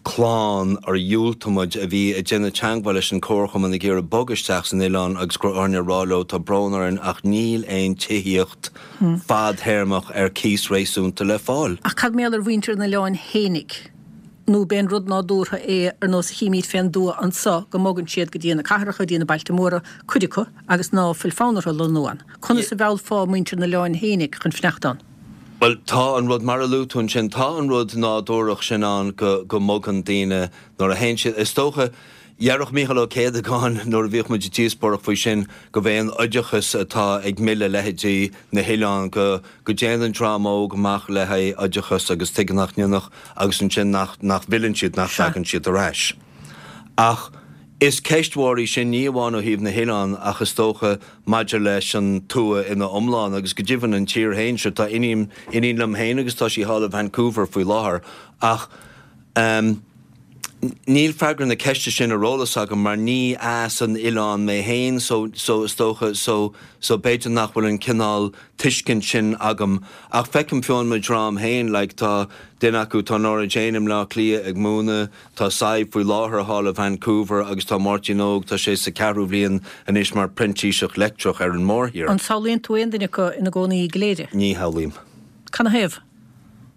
clann ar dhiúltaigh muid a bhí ag déanamh teagmháil leis an Comharchumann ag iarraidh bogadh isteach san oileán agus go raibh orainn a rá leo tá brón orainn ach níl aon tithíocht fadthéarmach ar cíos réasúnta le fáil. Ach cad mar gheall ar mhuintir an oileáin fhéinig? Nó b'é an rud nádúrtha é, ar nós a chímíd fén dtuath anso, go mbogann siad go dtí na cathracha, go dtí na bailte móra, cuid acu, agus ná fuil fonn orthu lonnú ann. Conas a mheallfá muintir an oileáin fhéinig chun fanacht ann? Bhuel, tá an rud, mar a luaigh tú ansin, tá an rud nádúrach sin ann go, go mbogann daoine nuair a théann siad, is dócha, Deireadh Mícheál Ó Céadagáin nuair a bhíodh muid ag díospóireacht faoi sin go b'é an oideachas atá ag milleadh leithéidí na hoileán, go go dtéann an dream óg amach le haghaidh oideachas agus tuige nach ndéanfadh agus ansin nach nach bhfilleann siad, nach dtagann siad ar ais. Ach is ceist mhór í sin ní amháin ó thaobh na hoileán ach is dócha maidir leis an tuath ina iomlán agus go deimhin an tír féin. Sure tá iníon iníon liom féin agus tá sí thall i Vancouver faoi láthair ach ehm, Níl freagra na ceiste sin ar eolas agam mar ní as an oileán mé féin so so is dócha so so b'fhéidir nach bhfuil an cineál tuiscint sin agam ach feicim fiú amháin mo dhream féin like tá duine acu tá Nora Jane i mBleá Cliath ag múineadh, tá Sadhbh faoi láthair thall i Vancouver agus tá Máirtín Óg tá sé sa ceathrú bhliain anois mar printíseach leictreach ar an mórthír. An samhlaíonn tú aon duine acu ina gcónaí i gCléire? Ní shamhlaím. Canathaobh?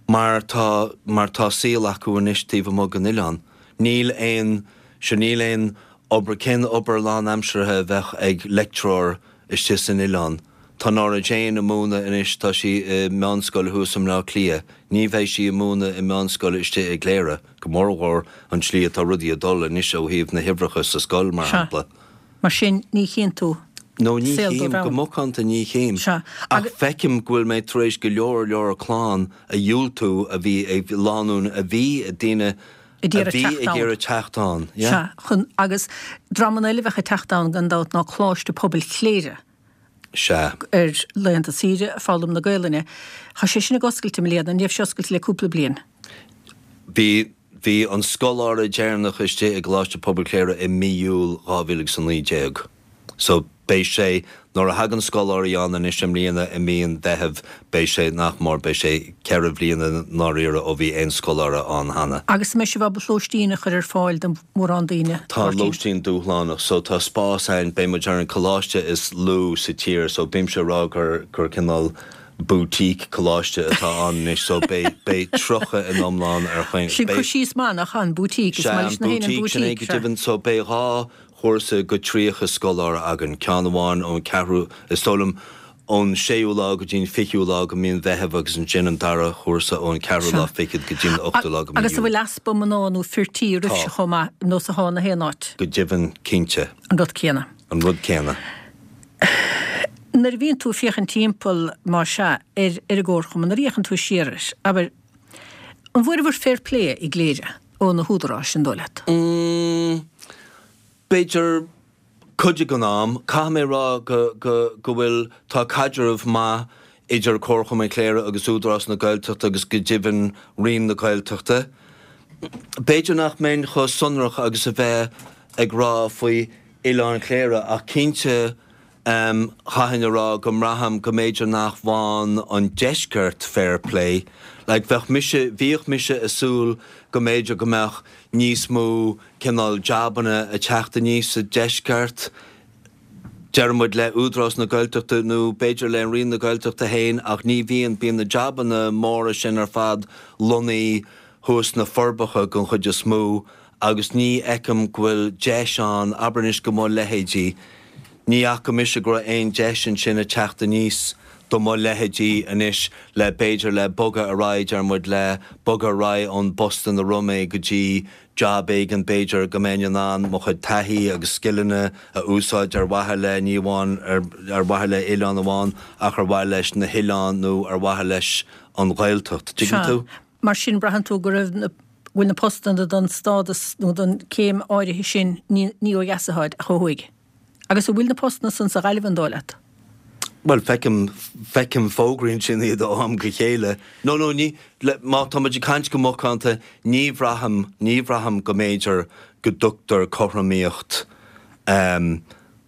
Mar tá, mar tá saol acu anois taobh amuigh den oileán. Níl aon, sure níl aon obair, cén obair lánaimseartha a bheadh ag leictreoir istigh san oileán? Tá Nora Jane ag múineadh anois, tá sí i meánscoil thuas i mBleá Cliath. Ní bheidh sí ag múineadh i meánscoil istigh i gCléire, go mórmhór an tslí atá rudaí ag dul anois ó thaobh na huimhreacha sa scoil, mar Sea. shampla. Mar sin, ní chíonn tú No, ní saol chím, dóibh go ann. macánta ní chím. Sea, Ach agus. feicim go bhfuil mé tar éis go leor leor clann a dhiúltú a bhí ag, lánúin a bhí, daoine Ag a iarraidh bhí teacht ag ann. iarraidh teacht ann. Yeah. Sea, chun, agus dreamanna eile a bheadh ag teacht ann gan dabht ná Coláiste Pobail Chléire. Sea. Ar laethanta saoire, ag foghlaim na Gaelainne. Tá sé sin ag oscailt i mbliana, an raibh sé oscailte le cúpla bliain? Bhí, bhí an scoláire deireanach istigh i gColáiste Pobail Chléire i mí Iúil 2019. So. Beidh sé, nuair a thagann scoláirí ann anois i mbliana i mí an Mheithimh, beidh sé, nach mór, beidh sé 4 bhliana i ndáiríre ó bhí aon scoláire ann cheana. Agus an mbeidh sibh ábalta lóistín a chur ar fáil do mhórán daoine, Tá Máirtín? lóistín dúshlánach, so tá spás ann, beidh muid ar an coláiste is lú sa tír, so bímse ag rá gur, gur cineál boutique coláiste atá ann anois, so beidh, beidh 30 in iomlán ar chaon, Sin cur beidh. síos maith, nach ea, an boutique, is Sea, maith an leis na héinne an boutique, sin é boutique, go sea. deimhin, so beidh 2 chúrsa go 30 scoláire againn, ceann amháin ón ceathrú, is dóigh liom, ón séú lá go dtí an fichiú lá go mí an Mheithimh agus ansin an dara chúrsa ón ceathrú lá Sea. fichead go dtí an ochtú lá go mí Agus an Iúil. bhfuil easpa mná nó fir tí Tá. oraibhse chomh maith, nós atá na haon áit? Go deimhin, cinnte. An rud céanna. An rud céanna. Nuair a bhíonn tú ag féachaint timpeall, más ea, ar ar an gComharchumann, nuair a fhéachann tú siar air, abair, an bhfuaireabhair fair play i gCléire ó na húdaráis, an dóigh leat? Mm, b'fhéidir cuid den am. Caithfidh mé a rá go, go, go bhfuil, tá caidreamh maith idir Comharchumann Chléire agus Údarás na Gaeltachta agus go deimhin Roinn na Gaeltachta. B'fhéidir nach mbeinn chomh sonrach agus a bheith ag rá faoi Oileán Chléire ach cinnte chaithfinn a rá go mbraithim go mb'fhéidir nach bhfaigheann an deisceart fair play. Like bheadh mise, bhíodh mise ag súil go mb'fhéidir go mbeadh níos mó cineál jabanna ag teacht aníos sa deisceart, deir muid le Údarás na Gaeltachta nó b'fhéidir le Roinn na Gaeltachta féin ach ní bhíonn, bíonn na jabanna móra sin ar fad lonnaithe thuas sna Forbacha den chuid is mó agus ní fheicim go bhfuil deis ann, abair anois go mo leithéidí, ní fhaca mise go raibh aon deis ansin ag teacht aníos do mo leithéidí anois le b'fhéidir le bogadh ar aghaidh, deir muid le bogadh ar aghaidh ón bpost ina raibh mé go dtí jab éigin b'fhéidir go mbeinn in ann mo chuid taithí agus scileanna a úsáid ar mhaithe le, ní amháin ar ar mhaithe le oileán amháin ach ar mhaithe leis na hoileáin nó ar mhaithe leis an Ghaeltacht. Tuigeann Sea. tú? Mar sin, braitheann tú go raibh na, go bhfuil na postanna don stádas nó don céim áirithe sin ní, ní ó dheas atáid ach ó thuaidh. Agus an bhfuil na postanna san sa Ghaillimh an dóigh leat? Bhuel, feicim, feicim fógraí ansin iad ó am go chéile. No, no, ní, le, má tá muid ag caint go macánta, ní bhraithim, ní bhraithim go mb'fhéidir go dtugtar cothromaíocht, ehm,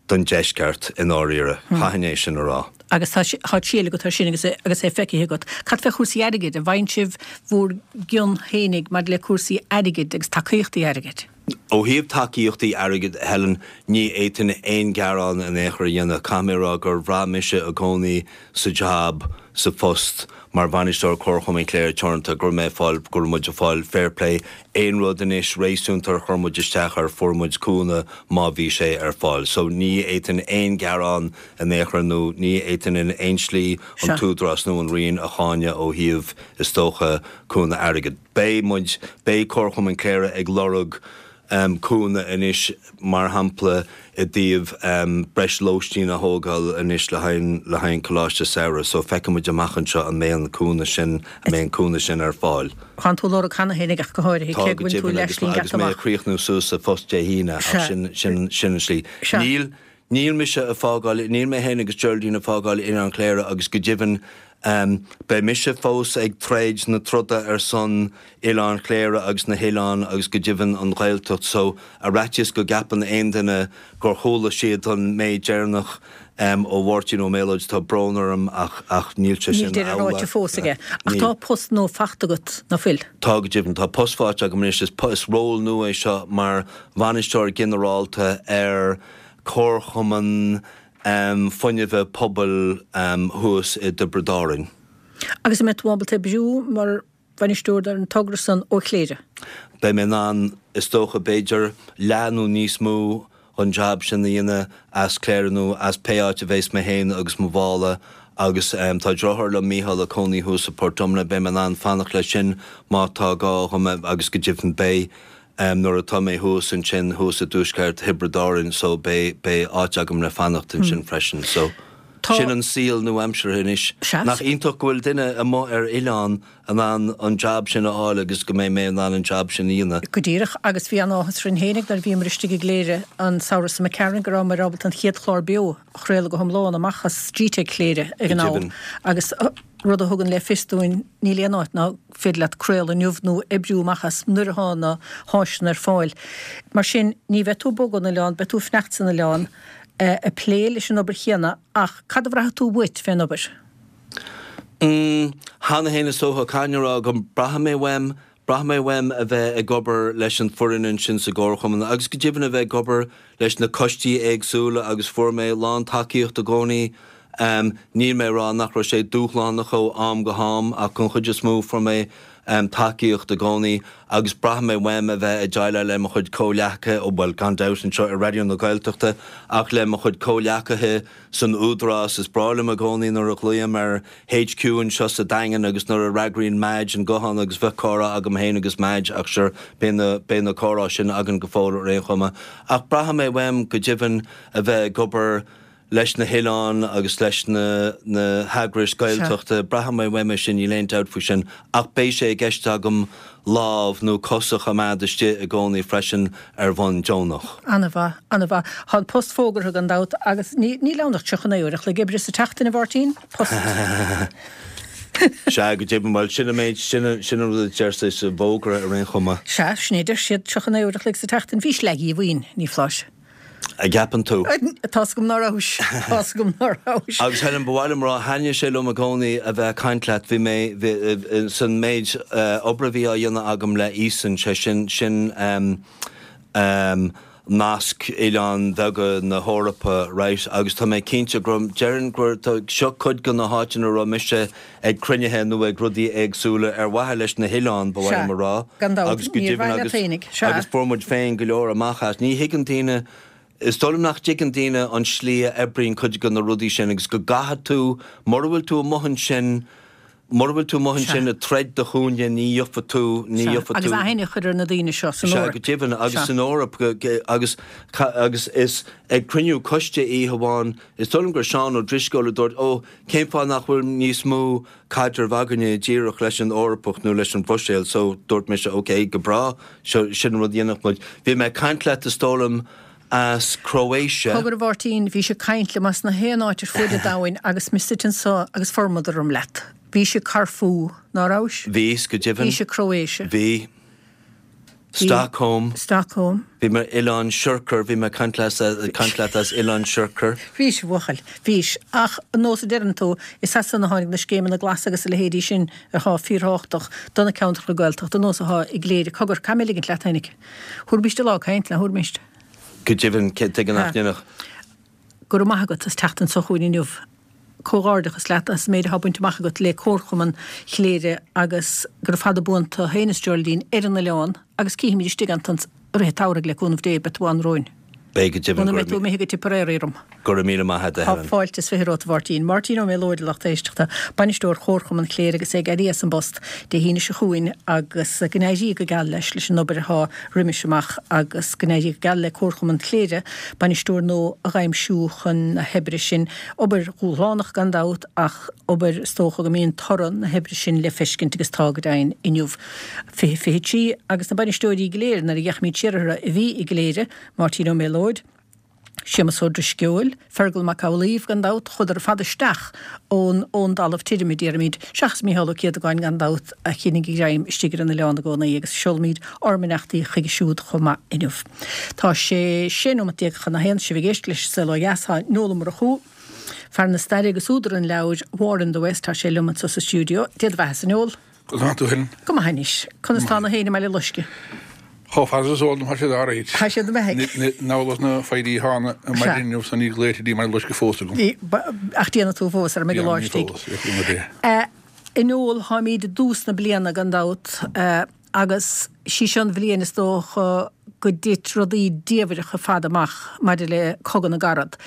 don deisceart i ndáiríre. Chaithfinn é sin a rá. Agus tá tá triail agat air sin agus é agus é feicthe agat. Cad fé chúrsaí airgid? An bhfaigheann sibh bhur gcion fhéinig maidir le cúrsaí airgid agus tacaíochtaí airgid? Ó thaobh tacaíochtaí airgid, Helen, ní fhéadfainn aon ghearán in aon chor a dhéanamh. Caithfidh mé a rá gur bhraith mise i gcónaí sa jab, sa phost, mar bhainisteoir Comharchumann Chléire Teoranta, go raibh mé ag fáil, go raibh muid ag fáil fair play, aon rud anois réasúnta ar chuir muid isteach air, fuair muid cúnamh má bhí sé ar fáil. So ní fhéadfainn aon ghearán in aon chor nó ní fhéadfainn in aon slí an tÚdarás nó an Roinn a cháineadh ó thaobh, is dócha, cúnamh airgid. Beidh muid, beidh Comharchumann Chléire ag lorg cúnamh anois, mar shampla, i dtaobh breis lóistín a thógáil anois le haghaidh le haghaidh an Coláiste Samhraidh. So feicfidh muid amach anseo an mbeidh an cúnamh sin, an mbeidh an cúnamh sin ar fáil. Tánn tú ag lorg cheana féinig ach go háirithe, Tá cé go go bhfuil tú deimhin agus leathshlí agus geata mé ag amach. críochnú suas sa phost Dé hAoine ach Sea. sin sin sin an slí. Sea. Níl níl mise ag fágáil, níl mé féin agus Geraldine ag fágáil Oileán Chléire agus go deimhin Beidh mise fós ag troid na troda ar son Oileán Chléire agus na hoileáin agus go deimhin an Ghaeltacht so ar fhaitíos go gceapann aon duine gur chuala siad an méid deireanach ó Mháirtín Ó Méalóid tá brón orm ach ach níl sé Níl sin deireadh ráite amhlaidh. fós aige. Ach Níl. tá post nua faighte agat, ná fuil? Tá go deimhin. Tá post faighte agam anois. Is is ról nua é seo mar bhainisteoir ginearálta ar Comharchumann Fuinnimhe Pobail thuas i dTiobraid Árainn. Agus an mbeidh tú ábalta oibriú mar bhainisteoir ar an togra san ó Chléire? Beidh mé in ann, is dócha, b'fhéidir leath nó níos mó an jab sin a dhéanamh as Cléire nó as pé áit a bheas mé féin agus mo mhála agus tá deartháir liom, Mícheál, ag cónaí thuas i Port Omna, beidh mé in ann fanacht leis sin má tá gá dhom agus go deimhin beidh. Nuair atá mé thuas ansin, thuas i dtuaisceart Thiobraid Árann, so beidh, beidh áit agam le fanacht ansin freisin. So, sin an saol nua-aimseartha anois. Nach iontach go bhfuil duine amuigh ar oileán in ann an jab sin a fháil agus go mbeidh mé in ann an jab sin a dhéanamh. Go díreach, agus bhí an-áthas orainn fhéinig nuair a bhíomar istigh i gCléire an samhradh seo imigh tharainn go rabhamar ábalta an chéad chlár beo a chraoladh go hiomlán amach as Gteic Chléire ag an am agus rud a thugann le fios dúinn níl aon áit nach féidir leat craoladh inniu nó oibriú amach as nuair atá na háiseanna ar fáil. Mar sin, ní bheidh tú ag bogadh ón oileán, beidh tú ag fanacht san oileán. Ag plé leis an obair chéanna ach cad a bhraithfidh tú uait fén obair? Mm, cheana féin is dócha, caithfidh mé a rá go mbraithfidh mé uaim, braithfidh mé uaim a bheith ag obair leis an foireann ansin sa gComharchumann agus go deimhin a bheith ag obair leis na coistí éagsúla agus fuair mé lán tacaíocht i gcónaí. Níl mé ag rá nach raibh sé dúshlánach ó am go ham ach den chuid is mó fuair mé tacaíocht i gcónaí agus braithfidh mé uaim a bheith ag déileáil le mo chuid comhghleacaithe, bhuel gan dabht anseo i Raidió na Gaeltachta ach le mo chuid comhghleacaithe san Údarás. Is breá liom i gcónaí nuair a ghlaoim ar HQ anseo sa Daingean agus nuair a fhreagraíonn Madge an guthán agus bheadh comhrá agam féin agus Madge ach sure beidh na, beidh na comhrá sin againn go fóill ar aon chuma. Ach braithfidh mé uaim go deimhin a bheith ag obair leis na hoileáin agus leis na na heagrais Gaeltachta, braithfidh mé uaim é sin, níl aon dabht faoi sin, ach beidh sé i gceist agam lámh nó cos a choimeád istigh i gcónaí freisin ar bhonn deonach. Ana-mhaith, ana-mhaith. Tá an post fógartha gan dabht agus ní, níl ann ach 39 uair a chloig oibre sa tseachtain, a Mháirtín? Post. Sea, go deimhin, bhuel, sin an méid, sin an, sin an rud a deir siad sa bhfógra ar aon chuma. Sea, sin é a deir siad, 39 uair a chloig sa tseachtain. Bhís leath-dhíomhaoin, ní foláir. An gceapann tú? Tá's agam ná rabhais. Tá's agam ná rabhais. Agus Helen, ba mhaith liom rá, thaitnigh sé liom i gcónaí a bheith ag caint leat. Bhí mé, bhí, san méid obair a bhí á dhéanamh agam le Eason, sé sin, sin nasc oileáin bheaga na hEorpa, right, agus tá mé cinnte go raibh, déarfainn gur, tá, seo cuid de na háiteanna a raibh mise ag cruinnithe nó ag rudaí éagsúla ar mhaithe leis na hoileáin, ba mhaith liom a rá, Gan dabht, agus go ní ar deimhin mhaithe leat agus fhéinig, sea. agus fuair muid féin go leor amach as. Ní thuigeann daoine, is dóigh liom nach dtuigeann daoine an slí a oibríonn cuid de na rudaí sin agus go gcaithfidh tú, mura bhfuil tú amuigh ansin, mura bhfuil tú amuigh ansin ag troid do chúinne ní gheofa tú, ní Sea, gheofa agus tú. aithne a chur ar na daoine seo san Sea, Eoraip. go deimhin, agus Sea. san Eoraip, agus, agus is ag cruinniú coiste oíche amháin, is dóigh liom gur Seán Ó Drisceoil a dúirt, ó, cén fáth nach bhfuil níos mó caidreamh againne díreach leis an Eorpach nó leis an Bhruiséil so dúirt mise ok, go breá, seo, sin an rud a dhéanfadh muid. Bhí mé ag caint leat is dóigh liom as Croatia. Cogar a Mháirtín, bhís ag caint liom as na haon áit ar fuaid an domhain agus mé suite anso agus formad orm leat. Bhís i Corfú, ná rabhais? Bhíos, go deimhin. Bhís i Croatia. Bhí. Stockholm. Stockholm. Bhí mé ar Oileán Siorcar, bhí mé ag caint leat as Oileán Siorcar. Bhís, a bhuachaill, bhís. Ach, an nós a deireann tú, is as san a tháinig na scéimeanna glasa agus a leithéidí sin athá fíorthábhachtach do na ceantracha Gaeltachta, an nós athá i gCléire. Cogar, caithfidh mé ligint leat fhéinig. Thabharfaimíst lá ag caint, nach dtabharfaimíst? Go deimhin, tuige nach ndéanfadh. Go raibh maith agat as teacht anso chugainn inniu. Comhghairdeachas leat as an méid atá bainte amach agat le Comharchumann Chléire agus gura fada buan tú féin is Geraldine ar an oileán agus cífimid istigh ansan i rith an tsamhraidh le cúnamh Dé, beidh tú ann romhainn. Beidh go deimhin. Muna mbeidh tú imithe go Tipperary orm. Go raibh míle maith agat, a Tá Helen. fáilte is 20 romhat, a Mháirtín. Máirtín Ó Méalóid, a lucht éisteachta, Bainisteoir Chomharchumann Chléire agus é ag éirí as an bpost Dé hAoine seo chugainn agus go n-éirí go geal leis leis an obair atá roimis amach agus go n-éirí go geal le Comharchumann Chléire bainisteoir nua a dh'aimsiú chun na hoibre sin. Obair dhúshlánach gan dabht ach obair is dócha go mbíonn toradh na hoibre sin le feiscint agus tá go deimhin inniu. 20 23 agus na bainisteoirí go léir nuair a d'fhéachaimid siar orthu a bhí i gCléire, Máirtín Ó Méalóid, Séamus Ó Drisceoil, Fergal Mac Amhlaoibh, gan dabht, chuadar ar fad isteach ón ón dtalamh tirim, a déarfaimid, seachas Mícheál Ó Céadagáin, gan dabht, a choinnigh a ghreim istigh ar an oileán i gcónaí, agus seolaimid ár mbeannachtaí chuige siúd chomh maith inniu. Tá sé 16 nóimeat chun a haon, sibh ag éisteacht leis An Saol Ó Dheas, tá Noel Ó Murchú, fear na staire agus údar an leabhair War in the West, tá sé liom anseo sa stiúideo. Dé do bheatha-sa, a Noel. Conas tá tú Helen? Go maith anois. Conas tá na héin i mBaile Loiscthe? Chomh fada is eol dom tá siad alright. Tá siad i mbeathaigh. Namhlas na foirí atá ann ar maidin inniu so níl glaoite dtí mBaile Loiscthe fós agam. Ach déanfaidh tú fós ar mbeidh an lá istigh. A Noel, táimid i dtús na bliana gan dabht. Agus sí seo an bhliain is dócha go dtit rudaí diamhaireacha ar fad amach maidir le Cogadh na gCarad.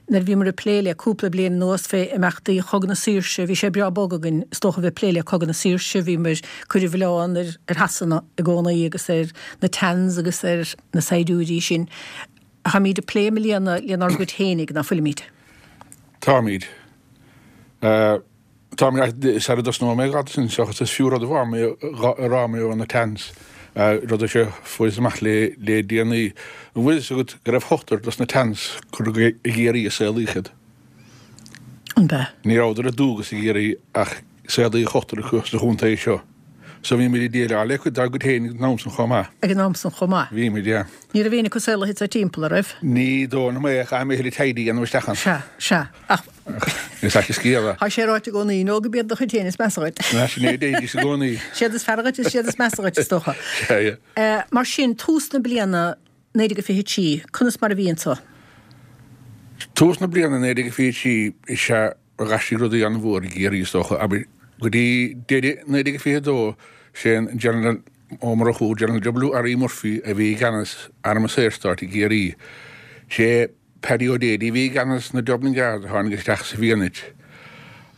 Nuair a bhíomar ag plé le cúpla bliain anuas fé imeachtaí Chogadh na Saoirse, bhí sé breá bog againn is dócha a bheith ag plé le Cogadh na Saoirse, bhíomar ag cur an mhilleáin ar ar Shasana i gcónaí agus ar na Tans agus ar na saighdiúirí sin. Táimid ag plé i mbliana lenár gcuid fhéinig, ná fuilimid? Táimid. Tá mé sara dtosnóidh mé ag sin seachas is fiú rud amháin a rá mé ó na Tans, rud a fuarthas amach le le déanaí. An bhfuil fhios agat go raibh ochtar dos na Tans curtha i gCiarraí a saolaíodh iad? An b'ea? Ní rabhadar ar dualgas i gCiarraí ach saolaíodh ochtar acu sa chontae seo. So bhí muid ag déileáil le cuid dár gcuid féin ag an am san chomh maith. Ag an am san chomh maith. Bhí muid, yeah. Ní raibh éinne acu saolaithe anseo timpeall, a' raibh? Ní dóigh liom é, chaithfidh mé a thuilleadh taighde a dhéanamh isteach ann. Sea, sea. Ach. Is ait an scéal é. Tá sé ráite i gcónaí, nó go b'iad do chuid féin is measa dhuit. Sin é a deiridís i gcónaí. Siad is fearr dhuit is siad is measa dhuit, is dócha. Sea, yeah. Mar sin, tús na bliana 1923, conas mar a bhí anseo? Tús na bliana 1923 is ea a d'aistrigh rudaí an-mhór i gCiarraí, is dócha. Abair, go dtí deireadh 1922, sé an General Ó Murchú, General W. R. E. Murphy, a bhí i gceannas Arm an Saorstáit i gCiarraí. Sé Paddy O'Daly a bhí i gceannas na Dublin Guards a tháinig isteach sa bhFianait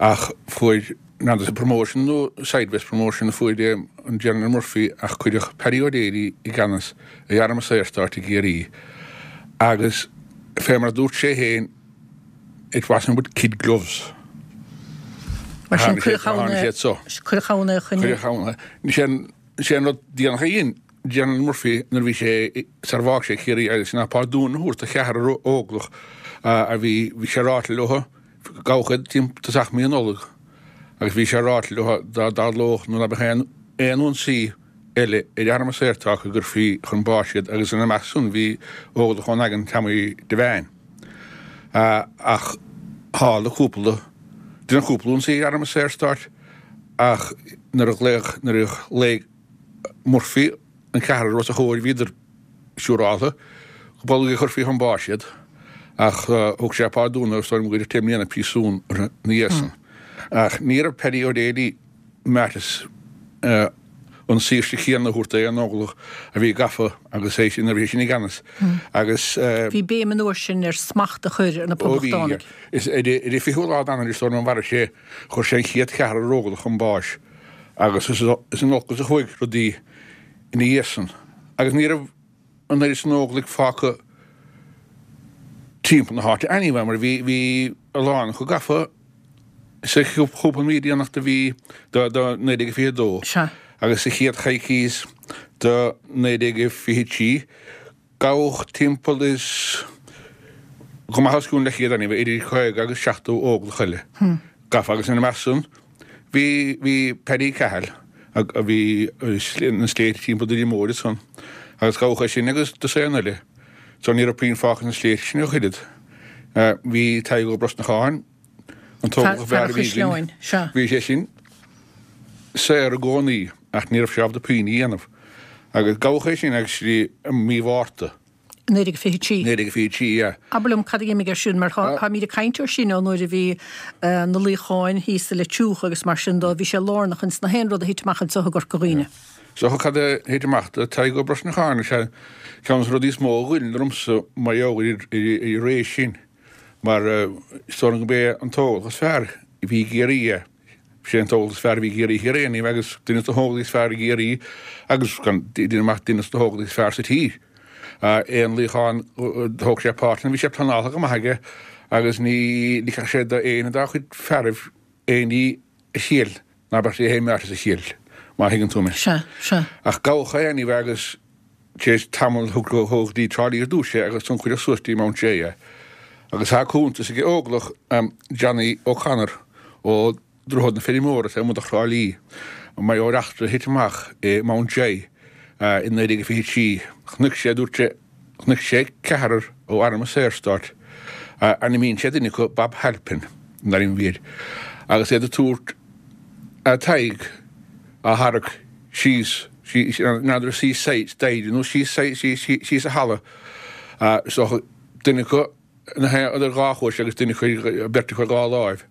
ach fuair n'fheadar promotion nó sideways promotion a fuair an General Murphy ach cuireadh Paddy O'Daly i gceannas ar Arm an Saorstáit i gCiarraí agus fé mar a dúirt sé féin it wasn't with kid gloves. Mar sin cuireadh ann é, cuireadh ann é chun. Cuireadh ann é. Sé an rud déanach a dhein General Murphy nuair a bhí sé sar a bhfág sé Ciarraí agus ná pardún a thabhairt do cheathrar óglach a bhí, bhí sé ráite leo, gabhadh iad timpeall tosach mí Nollag agus bhí sé ráite leo dá dtarlódh nó ná beadh aon aon ionsaí eile ar Arm an Saorstáit go gcuirfí chun báis iad agus ina measc san bhí óglach ón Daingean, Tommy Devane. Ach tharla cúpla, deineadh cúpla ionsaí ar Arm an Saorstáit ach nuair a ghlaoigh, nuair a ghlaoigh Murphy an ceathrar os a chomhair bhíodar siúráltha go bolg a chuirfí chun báis iad ach thug sé pardún agus dóigh liom gur deich mbliana príosún orthu ina dhiaidh san. Ach ní raibh Paddy O'Daly meáite an saoirse chéanna a thabhairt d'aon óglach a bhí gafa agus é sin, nuair a bhí sé sin i gceannas agus. Bhí béim an uair sin ar smacht a chur ar na Ó bhí, Poblachtánaigh. Is ar an 20ú lá d'Eanáir is dóigh liom a mharaigh sé Chuir sé an chéad cheathrar óglach chun báis agus is in olcas a chuaigh rudaí ina dhiaidh san agus ní raibh an oiread san óglaigh fágtha timpeall na háite anyway mar bhí bhí a lán acu gafa sa chúpla mí déanach de mhí de 1922 Sea. agus sa chéad choicís de 1923. Gabhadh timpeall is go maith os cionn leathchéad anyway, idir 50 agus 70 óglach eile gafa agus ina measc san bhí bhí Paddy Cahill a bhí na sléibhte timpeall Doire Móir ansan agus gabhadh é sin agus dosaen eile so ní raibh puinn fágtha sna sléibhte sin ach oiread. Bhí Tadhg Ó Brosnacháin, an t-óglach ab fearr a bhí againn, bhí sé sin saor i gcónaí ach ní raibh sé ábalta puinn a dhéanamh. Agus gabhadh é sin actually i mí Mhárta. 1923. 1923, yeah. Abair liom cad a d'imigh ar siúl, mar táimid ag caint air sin ó nuair a bhí na luíocháin thíos i Leitir Fraic agus mar sin dó, bhí sé lárnach ins na haon rud a thit amach anseo i gCorca Dhuibhne. So cad a thit amach do Tadhg Ó Brosnacháin, is ea ceann de na rudaí is mó a ghoill ormsa mar gheall ar an ré sin. Mar is dóigh liom gurb é an t-óglach is fearr a bhí i gCiarraí é. Sé an t-óglach is fearr a bhí i gCiarraí thiar é anyway agus duine de na hóglaigh is fearr i gCiarraí agus gan duine amach duine de na hóglaigh is fearr sa tír. Aon luíochán thóg sé páirt ann bhí sé pleanáilte go maith aige agus ní ligfeadh sé d'aon dá chuid fearaibh aon ní a thriail ná beadh sé féin meáite sa thriail, má thuigeann tú mé. Sea, sea. Ach gabhadh é anyway agus tar éis tamaill thug go dtí Trá Lí ar dtús é agus ansan cuireadh suas dtí Mount Joy é. Agus tá cuntas ag óglach Johnny O'Connor ó Droichead na Feirmeora taobh amuigh de Thrá Lí mar gheall ar eachtra a thit amach i Mount Joy i 1923. Chonaic sé, dúirt sé, Chonaic sé ceathrar ó Arm an Saorstáit, ainmníonn sé duine acu Bob Halpin, an ainm a bhí air, agus iad ag tabhairt Tadhg á tharrac síos, n'fheadar síos staighre nó síos síos an halla, so duine acu idir dhá chois agus duine acu beirt acu ar dhá láimh.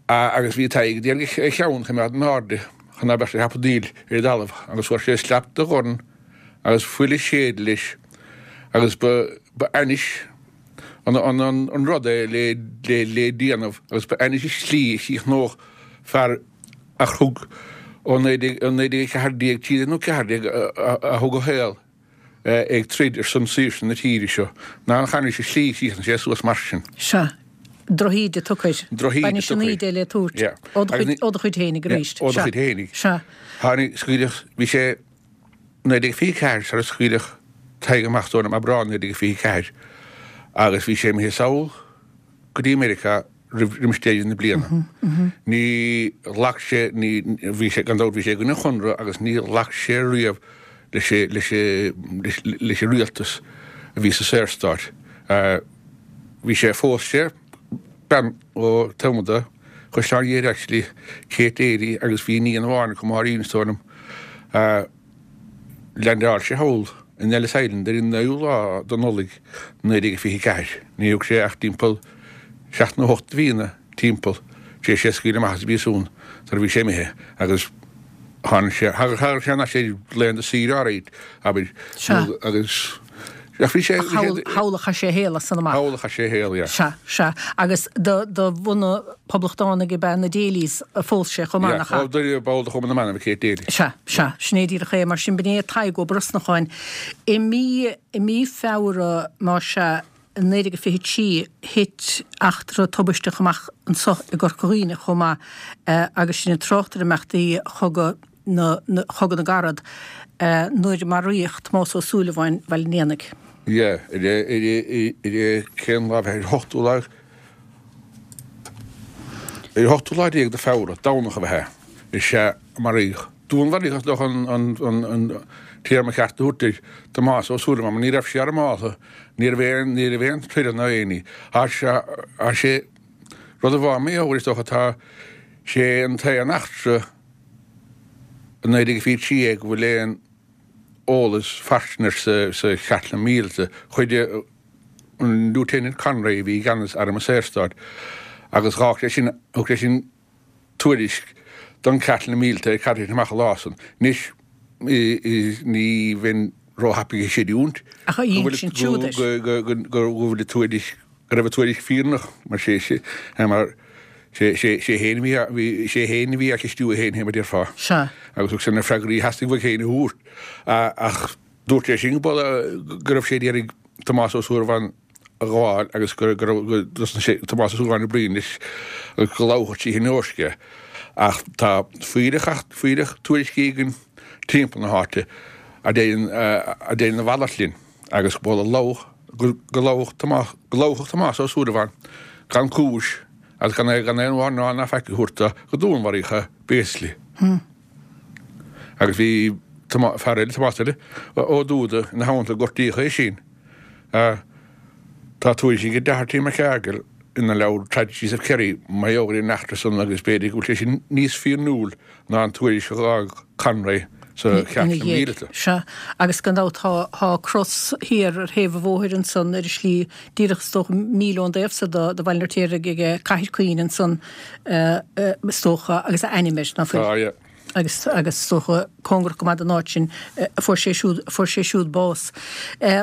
Agus bhí Tadhg ag iarraidh a cheann a choimeád in airde chun ná beadh sé ag hapadaíl ar an dtalamh agus fuair sé slap de dhorn agus fuil ag séideadh leis agus ba ba ainnis an an an rud é le le le déanamh agus ba ainnis an tslí a chríochnódh fear a thug ó 1914 13 nó 14 a thug a shaol ag troid ar son saoirse na tíre seo, ná an ainnis an tslí a chríochnaigh sé suas mar sin. Sea. Drochíde tugtha air. Drochíde tugtha air. B'ainnis an íde le tabhairt. Yeah. Ó do chuid, ó do chuid fhéinig arís. Ó do chuid fhéinig. Sea. Tháinig, scaoileadh, bhí sé 1924 sar a scaoileadh Tadhg amach is dóigh liom, Aibreán 1924, agus bhí sé imithe sall go dtí Meiriceá. roimis deireadh na bliana. Ní ghlac sé, ní, bhí sé, gan dabht bhí sé i gcoinne an Chonradh agus ní ghlac sé riamh leis, leis, leis an rialtas a bhí sa Saorstát. Bhí sé, phós sé bean ó Thuamada, Caisleán Ghéire actually, Kate Daly agus bhí iníon amháin acu, Máirín is dóigh liom. Leaindeáil sé thall in Ellis Island ar an 9ú lá de Nollaig 1924. Ní thug sé ach timpeall seacht nó hocht de mhíonna timpeall tar éis é a scaoileadh amach as an bpríosún sar a bhí sé imithe agus tháinig sé, thagadh sé thar n-ais ar laethanta saoire áirid, abair, agus ach bhí sé, bhí sé. Thall a chaith sé a shaol as san amach. Thall a chaith sé a shaol, yeah. Sea, sea. Agus de de bhunadh poblachtánaigh ab ea na Daly's a phós sé chomh maith, nach ea? Yeah, ball de Chumann na mBan ab ea Kate Daly. Sea, sea. Sin é díreach é. Mar sin, b'in é Tadhg Ó Brosnacháin. I mí, i mí Feabhra, más ea, 1923, thit eachtra tubaisteach amach anso i gCorca Dhuibhne chomh maith agus sinn ag trácht ar imeachtaí Chogadh na, Chogadh na gCarad, nuair a maraíodh Tomás Ó Súilleabháin Bhaile an Éanaigh. Yeah, ar a, ar a, ar a, cén lá, ar an ochtú lá, ar an ochtú lá déag de Feabhra, Domhnach ab ea, is ea a maraíodh. Dúnmharaíodh is dócha an téarma ceart a thabhairt air, Tomás Ó Súilleabháin, mar ní raibh sé armáltha, ní raibh aon, ní raibh aon troid ná aon ní. Tá sé, tá sé, rud a bhá mé ó, is dócha, tá sé an t-aon eachtra i 1923 é go bhfuil aon eolas fairsing air sa, sa Chartlann Mhíleata. Chuir an Lieutenant Conroy a bhí i gceannas Arm an Saorstáit agus dh'fhág sé sin, thug sé sin, tuairisc don Chartlann Mhíleata ar cad a thit amach an lá san. Anois, ní bheinn róthapaidh ag creidiúint go bhfuil an tuairisc, go raibh an tuairisc fírinneach, mar sé mar sé féin a bhí, sé féin a bhí á cheistiú é féin, fé mar a déarfá. Agus thug sé na freagraí a theastaigh uaidh féin a thabhairt. Ach dúirt sé sin go raibh sé ag iarraidh Tomás Ó Súilleabháin a ghabháil agus go raibh go dtosnaigh sé Tomás Ó Súilleabháin ag bruíon leis agus go lamhachadh trí thine Eoisc é. Ach tá fuílleach fuílleach tuairiscí againn timpeall na háite a deireann a deireann a mhalairt linn agus go lamhach go lamhach Tomás go lamhachadh Tomás Ó Súilleabháin gan cúis agus gan gan aon mhí-ádh ná faic a thabhairt dó go dúnmharaíodh é basically. Agus bhí fear eile, Tomás eile, Ó Dúda ina theannta, gortaíodh é sin. Tá tuairisc ag Doherty McCargill ina leabhar Tragedies of Kerry mar gheall ar an eachtra san agus b'fhéidir go bhfuil sé sin níos fírinniúil ná an tuairisc a dh'fhág Conroy sa Chartlann Mhíleata. Sea, agus gan dabht tá, tá cros thiar ar thaobh an bhóthair ansan ar an slí díreach is dócha míle ón dtaobh so de, de Bhaile an Fheirtéaraigh ag Cathair Caoin ansan is dócha agus a ainm air, ná fuil? Tá, yeah. agus agus is dócha cóngarach go maith don áit sin a fuair sé siúd a fuair sé siúd bás.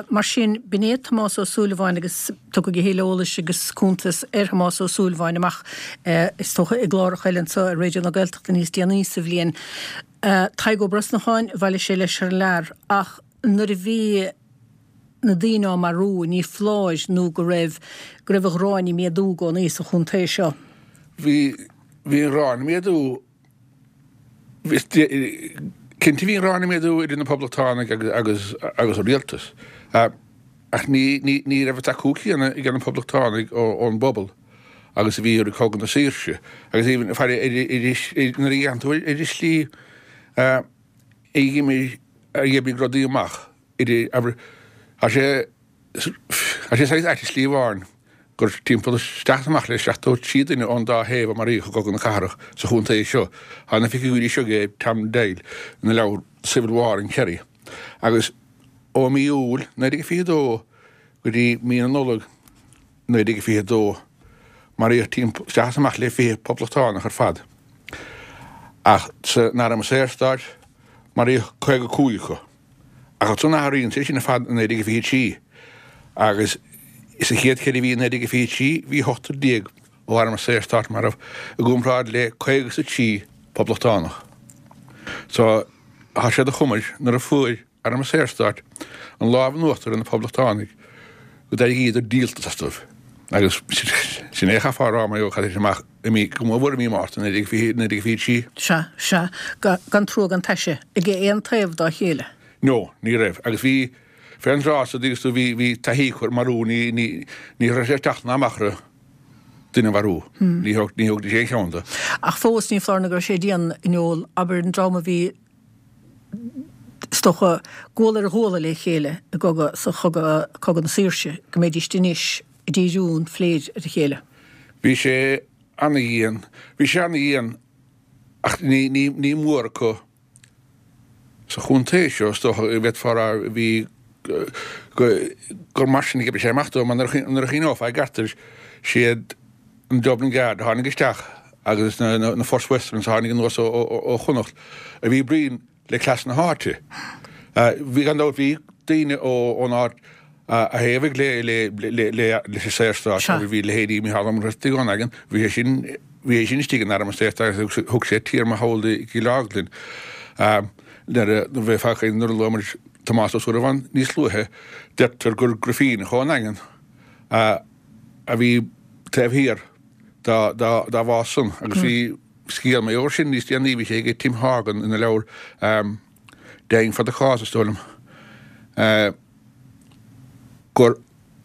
Mar sin, b'in é Tomás Ó Súilleabháin agus tiocfaidh a thuilleadh eolais agus cuntas ar Thomás Ó Súilleabháin amach is dócha i gcláracha eile anseo ar Raidió na Gaeltachta níos déanaí sa bhliain. Tadhg Ó Brosnacháin, bhailigh sé leis thar lear ach nuair a bhí na daoine á marú, ní foláir nó go raibh go raibh an ghráin ag méadú i gcónaí sa chontae seo. Bhí bhí an ghráin ag méadú Cinnte bhí an ghráin ag méadú idir na Poblachtánaigh agus agus an rialtas ach ní ní raibh an tacú céanna ag na Poblachtánaigh ón bpobal agus a bhí i rith Cogadh na Saoirse agus even faire nuair a dhéanann tú ar an slí a d'imigh a d'oibrigh rudaí amach idir abair tá sé Tá sé saghas ait i slí amháin gur timpeall isteach is amach le 73 duine ón dá thaobh a maraíodh i gCogadh na Cathrach sa chontae seo. Tá na figiúirí seo ag Tom Doyle ina leabhar Civil War in Kerry. Agus ó mí Iúil 1922 go dtí mí na Nollag 1922 maraíodh timpeall isteach is amach le 20 poblachtánach ar fad. Ach san Arm Saorstáit maraíodh 55 acu. Ach ansan athraíonn sé sin ar fad i 1923 agus sa chéad cheithre mhí i 1923 bhí ochtar déag ó Arm an Saorstáit marbh i gcomparáid le 53 poblachtánach. So tá sé de chumais nuair a fuair Arm an Saorstáit an lámh in uachtar ar na poblachtánaigh go d'éiríodar díoltas astu agus sin é a chaithfeá a rá mar gheall ar amach i mí, go mór mhór i mí Márta 1923. Sea, sea, gan trua gan taise ag aon taobh dá chéile. No, ní raibh. Agus bhí, fén dtráth so, dtuigeann tú, bhí, bhí taithí acu ar marú, ní, ní, ní raibh sé ag teacht ná amach orthu. duine a mharú. Ní thógfaidís aon cheann de. Ach fós, ní foláir nó go raibh sé dian, a Noel, abair, an dream a bhí, is dócha, guala ar ghuala le chéile i gcogadh, sa chogadh, Cogadh na Saoirse, go mbeidíst anois ag díriú an phléid ar a chéile. Bhí sé ana-dhian, bhí sé ana-dhian ach ní, ní, ní mór acu sa chontae seo, is dócha, go bhféadfá a rá, bhí, gur mar sin a d'oibrigh sé amach dó, mar nuair a chuimhneofá i gceart air, siad an Dublin Guard a tháinig isteach agus na First Westerns a tháinig anuas ó Chonnacht a bhí bruíon le cleas na háite. Bhí, gan dabht, bhí daoine ón áit a thaobhaigh leis an Saorstát agus bhí leithéidí Mícheál Ó Muircheartaigh ón nDaingean, bhí sé sin, bhí sé sin istigh in Arm an Saorstáit agus thug sé téarma thall i gCill Orglan. Nuair a bheifeá ag caint, nuair a luaigh muid Tomás Ó Súilleabháin níos luaithe, deirtear gur Grifíneach ón nDaingean a bhí taobh thiar dá bhás san agus bhí scéal mar gheall air sin níos déanaí, bhí sé ag Tim Horgan ina leabhar Dying for the Cause, is dóigh liom. gur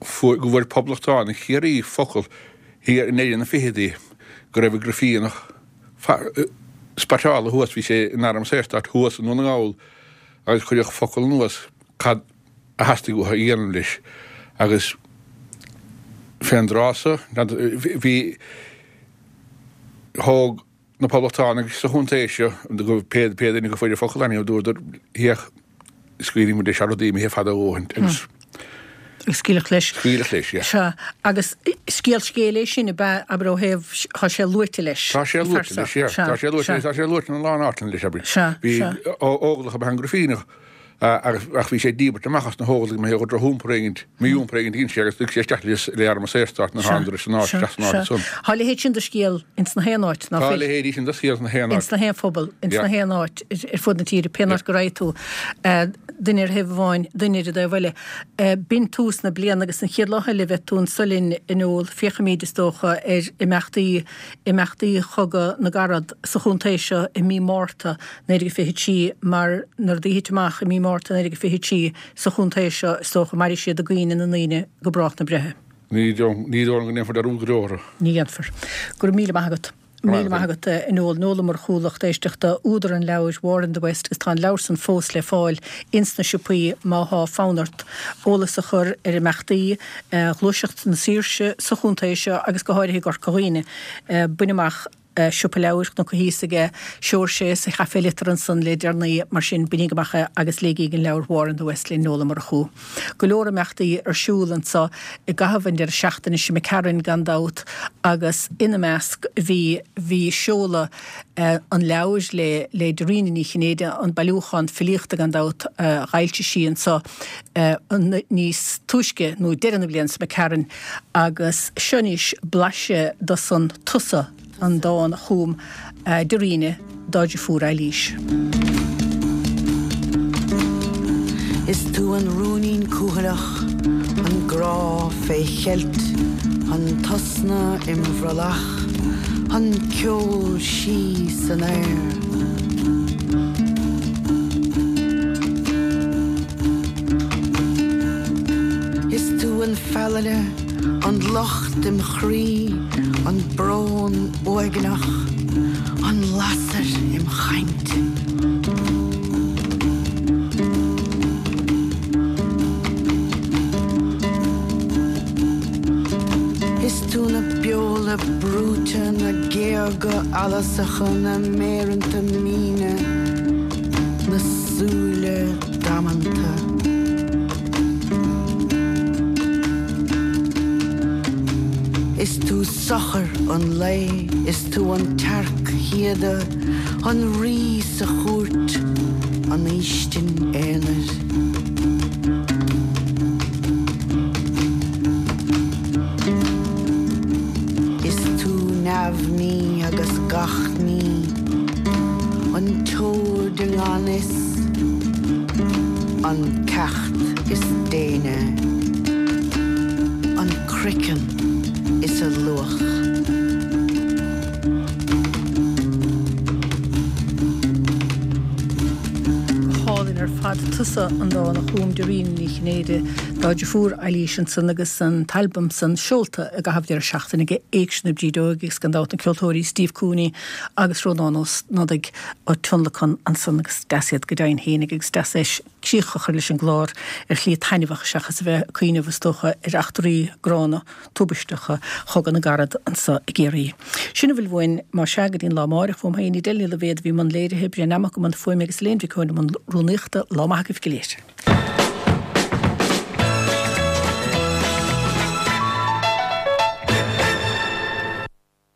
fuair go bhfuair poblachtánaigh Chiarraí focal thiar i ndeireadh na fichidí go raibh an Grifíneach spotáilte thuas, bhí sé in Arm an Saorstáit thuas i nDún na nGall agus cuireadh focal anuas cad a theastaigh uathu a dhéanamh leis agus fén dtráth so bhí thóg na poblachtánaigh sa chontae seo, pé duine go fuair an focal anyhow, dúradar, féach, scaoilfidh muid leis tá rudaí imithe fada a dhóthain agus. Agus scaoileadh leis. Scaoileadh leis, yeah. Sea, agus scéal scéil é sin, ab ea, abair ó thaobh, tá sé luaite leis. Tá sé luaite leis, yeah. Tá sé luaite leis, tá sé luaite ina lán áiteanna leis, abair. Sea, sea. Bhí óglach ab ea an Grifíneach. Ach bhí sé díbirt amach as na hÓglaigh mar gheall ar drochiompar éigint, mí-iompar éigint a dhein sé agus lig sé isteach le arm an Saorstáit nuair a thángadar san áit, isteach san áit san. Tá a leithéid sin de scéal ins na haon áit, ná fuil? Tá a leithéidí sin de scéal ins na haon áit. Ins na haon phobal, ins na haon áit ar fud na tíre, pén áit go raghaidh tú, duine ar thaobh amháin, duine ar an dtaobh eile. B'in tús na bliana agus an chéad lá eile a bheidh tú anso linn, a Noel, féachfaimíd, is dócha, ar imeachtaí, imeachtaí Chogadh na gCarad sa chontae seo i mí Márta 1923 mar na rudaí a thit amach i mí Márta 1923 sa chontae seo is dócha mairfidh siad i gcuimhne na ndaoine go brách na breithe. Ní dóigh liom go ndéanfar dearúd go deo orthu. Ní dhéanfar. Go raibh míle maith agat. Míle maith agat, a Noel. Noel Ó Murchú, lucht éisteachta, údar an leabhair War in the West agus tá an leabhar san fós le fáil ins na siopaí má thá fonn ort eolas a chur ar imeachtaí Ghluaiseacht na Saoirse sa chontae seo agus go háirithe i gCorca Dhuibhne. Bain amach Siopa Leabhair Chnoc a' Thíosaigh é, Seoirse sa Chaifé Liteartha ansan le deireanaí, mar sin bainíg amach é agus léigíg an leabhar War in the West le Noel Ó Murchú. Go leor imeachtaí ar siúl anso i gcaitheamh an deireadh seachtaine seo imigh tharainn gan dabht agus ina measc bhí bhí seoladh an leabhair le le Dairena Ní Chinnéide, an bailiúchán filíochta gan dabht a dh'fhoilsigh sí anso níos túisce nó deireadh na bliana seo imigh tharainn. Agus seo anois blaiseadh de san Tusa, an dán a chum Dairena dá deirfiúr Eilís. Is tú an rúinín cúthaileach, an grá fé cheilt, an t-osna im bhrollach, an ceol sí san aer. Is tú an feallaire, an locht im chroí, an brón uaigneach, an lasair im chaint. Is tú na beola brúite, na géaga allasacha, na méireanta míne, na súile damanta. Is tú sochar an lae, is tú an tsearc shíoda, an rí sa chúirt, an fhaoistin aonair. Is tú neamhní agus gach ní, an tseoid i ngan fhios, an ceacht. is déine, an craiceann is a luach. Go hálainn ar fad. Tusa an dán a chum Dairena Ní Chinnéide. Dá deirfiúr Eilís ansan agus an t-albam san seolta i gcaitheamh deireadh seachtaine aige Éigse na Brídeoige agus gan dabht na ceoltóirí Steve Cooney agus Rónán Ó Snodaigh á tionlacan ansan agus deas iad go deimhin fhéinig agus deas é críoch a chur leis an gclár ar shlí taitneamhach seachas a bheith ag cuimhneamh is dócha ar eachtraí gránna tubaisteacha Chogadh na gCarad anso i gCiarraí. Sin a bhfuil uainn, más ea, go dtí an lá amáireach. Uaim féin, Edel Ní Loibhéad a bhí i mbun léirithe, Brian Nammock i mbun fuaime agus Elaine Mhic Eoin i mbun rúnaíochta. Lá maith agaibh go léir.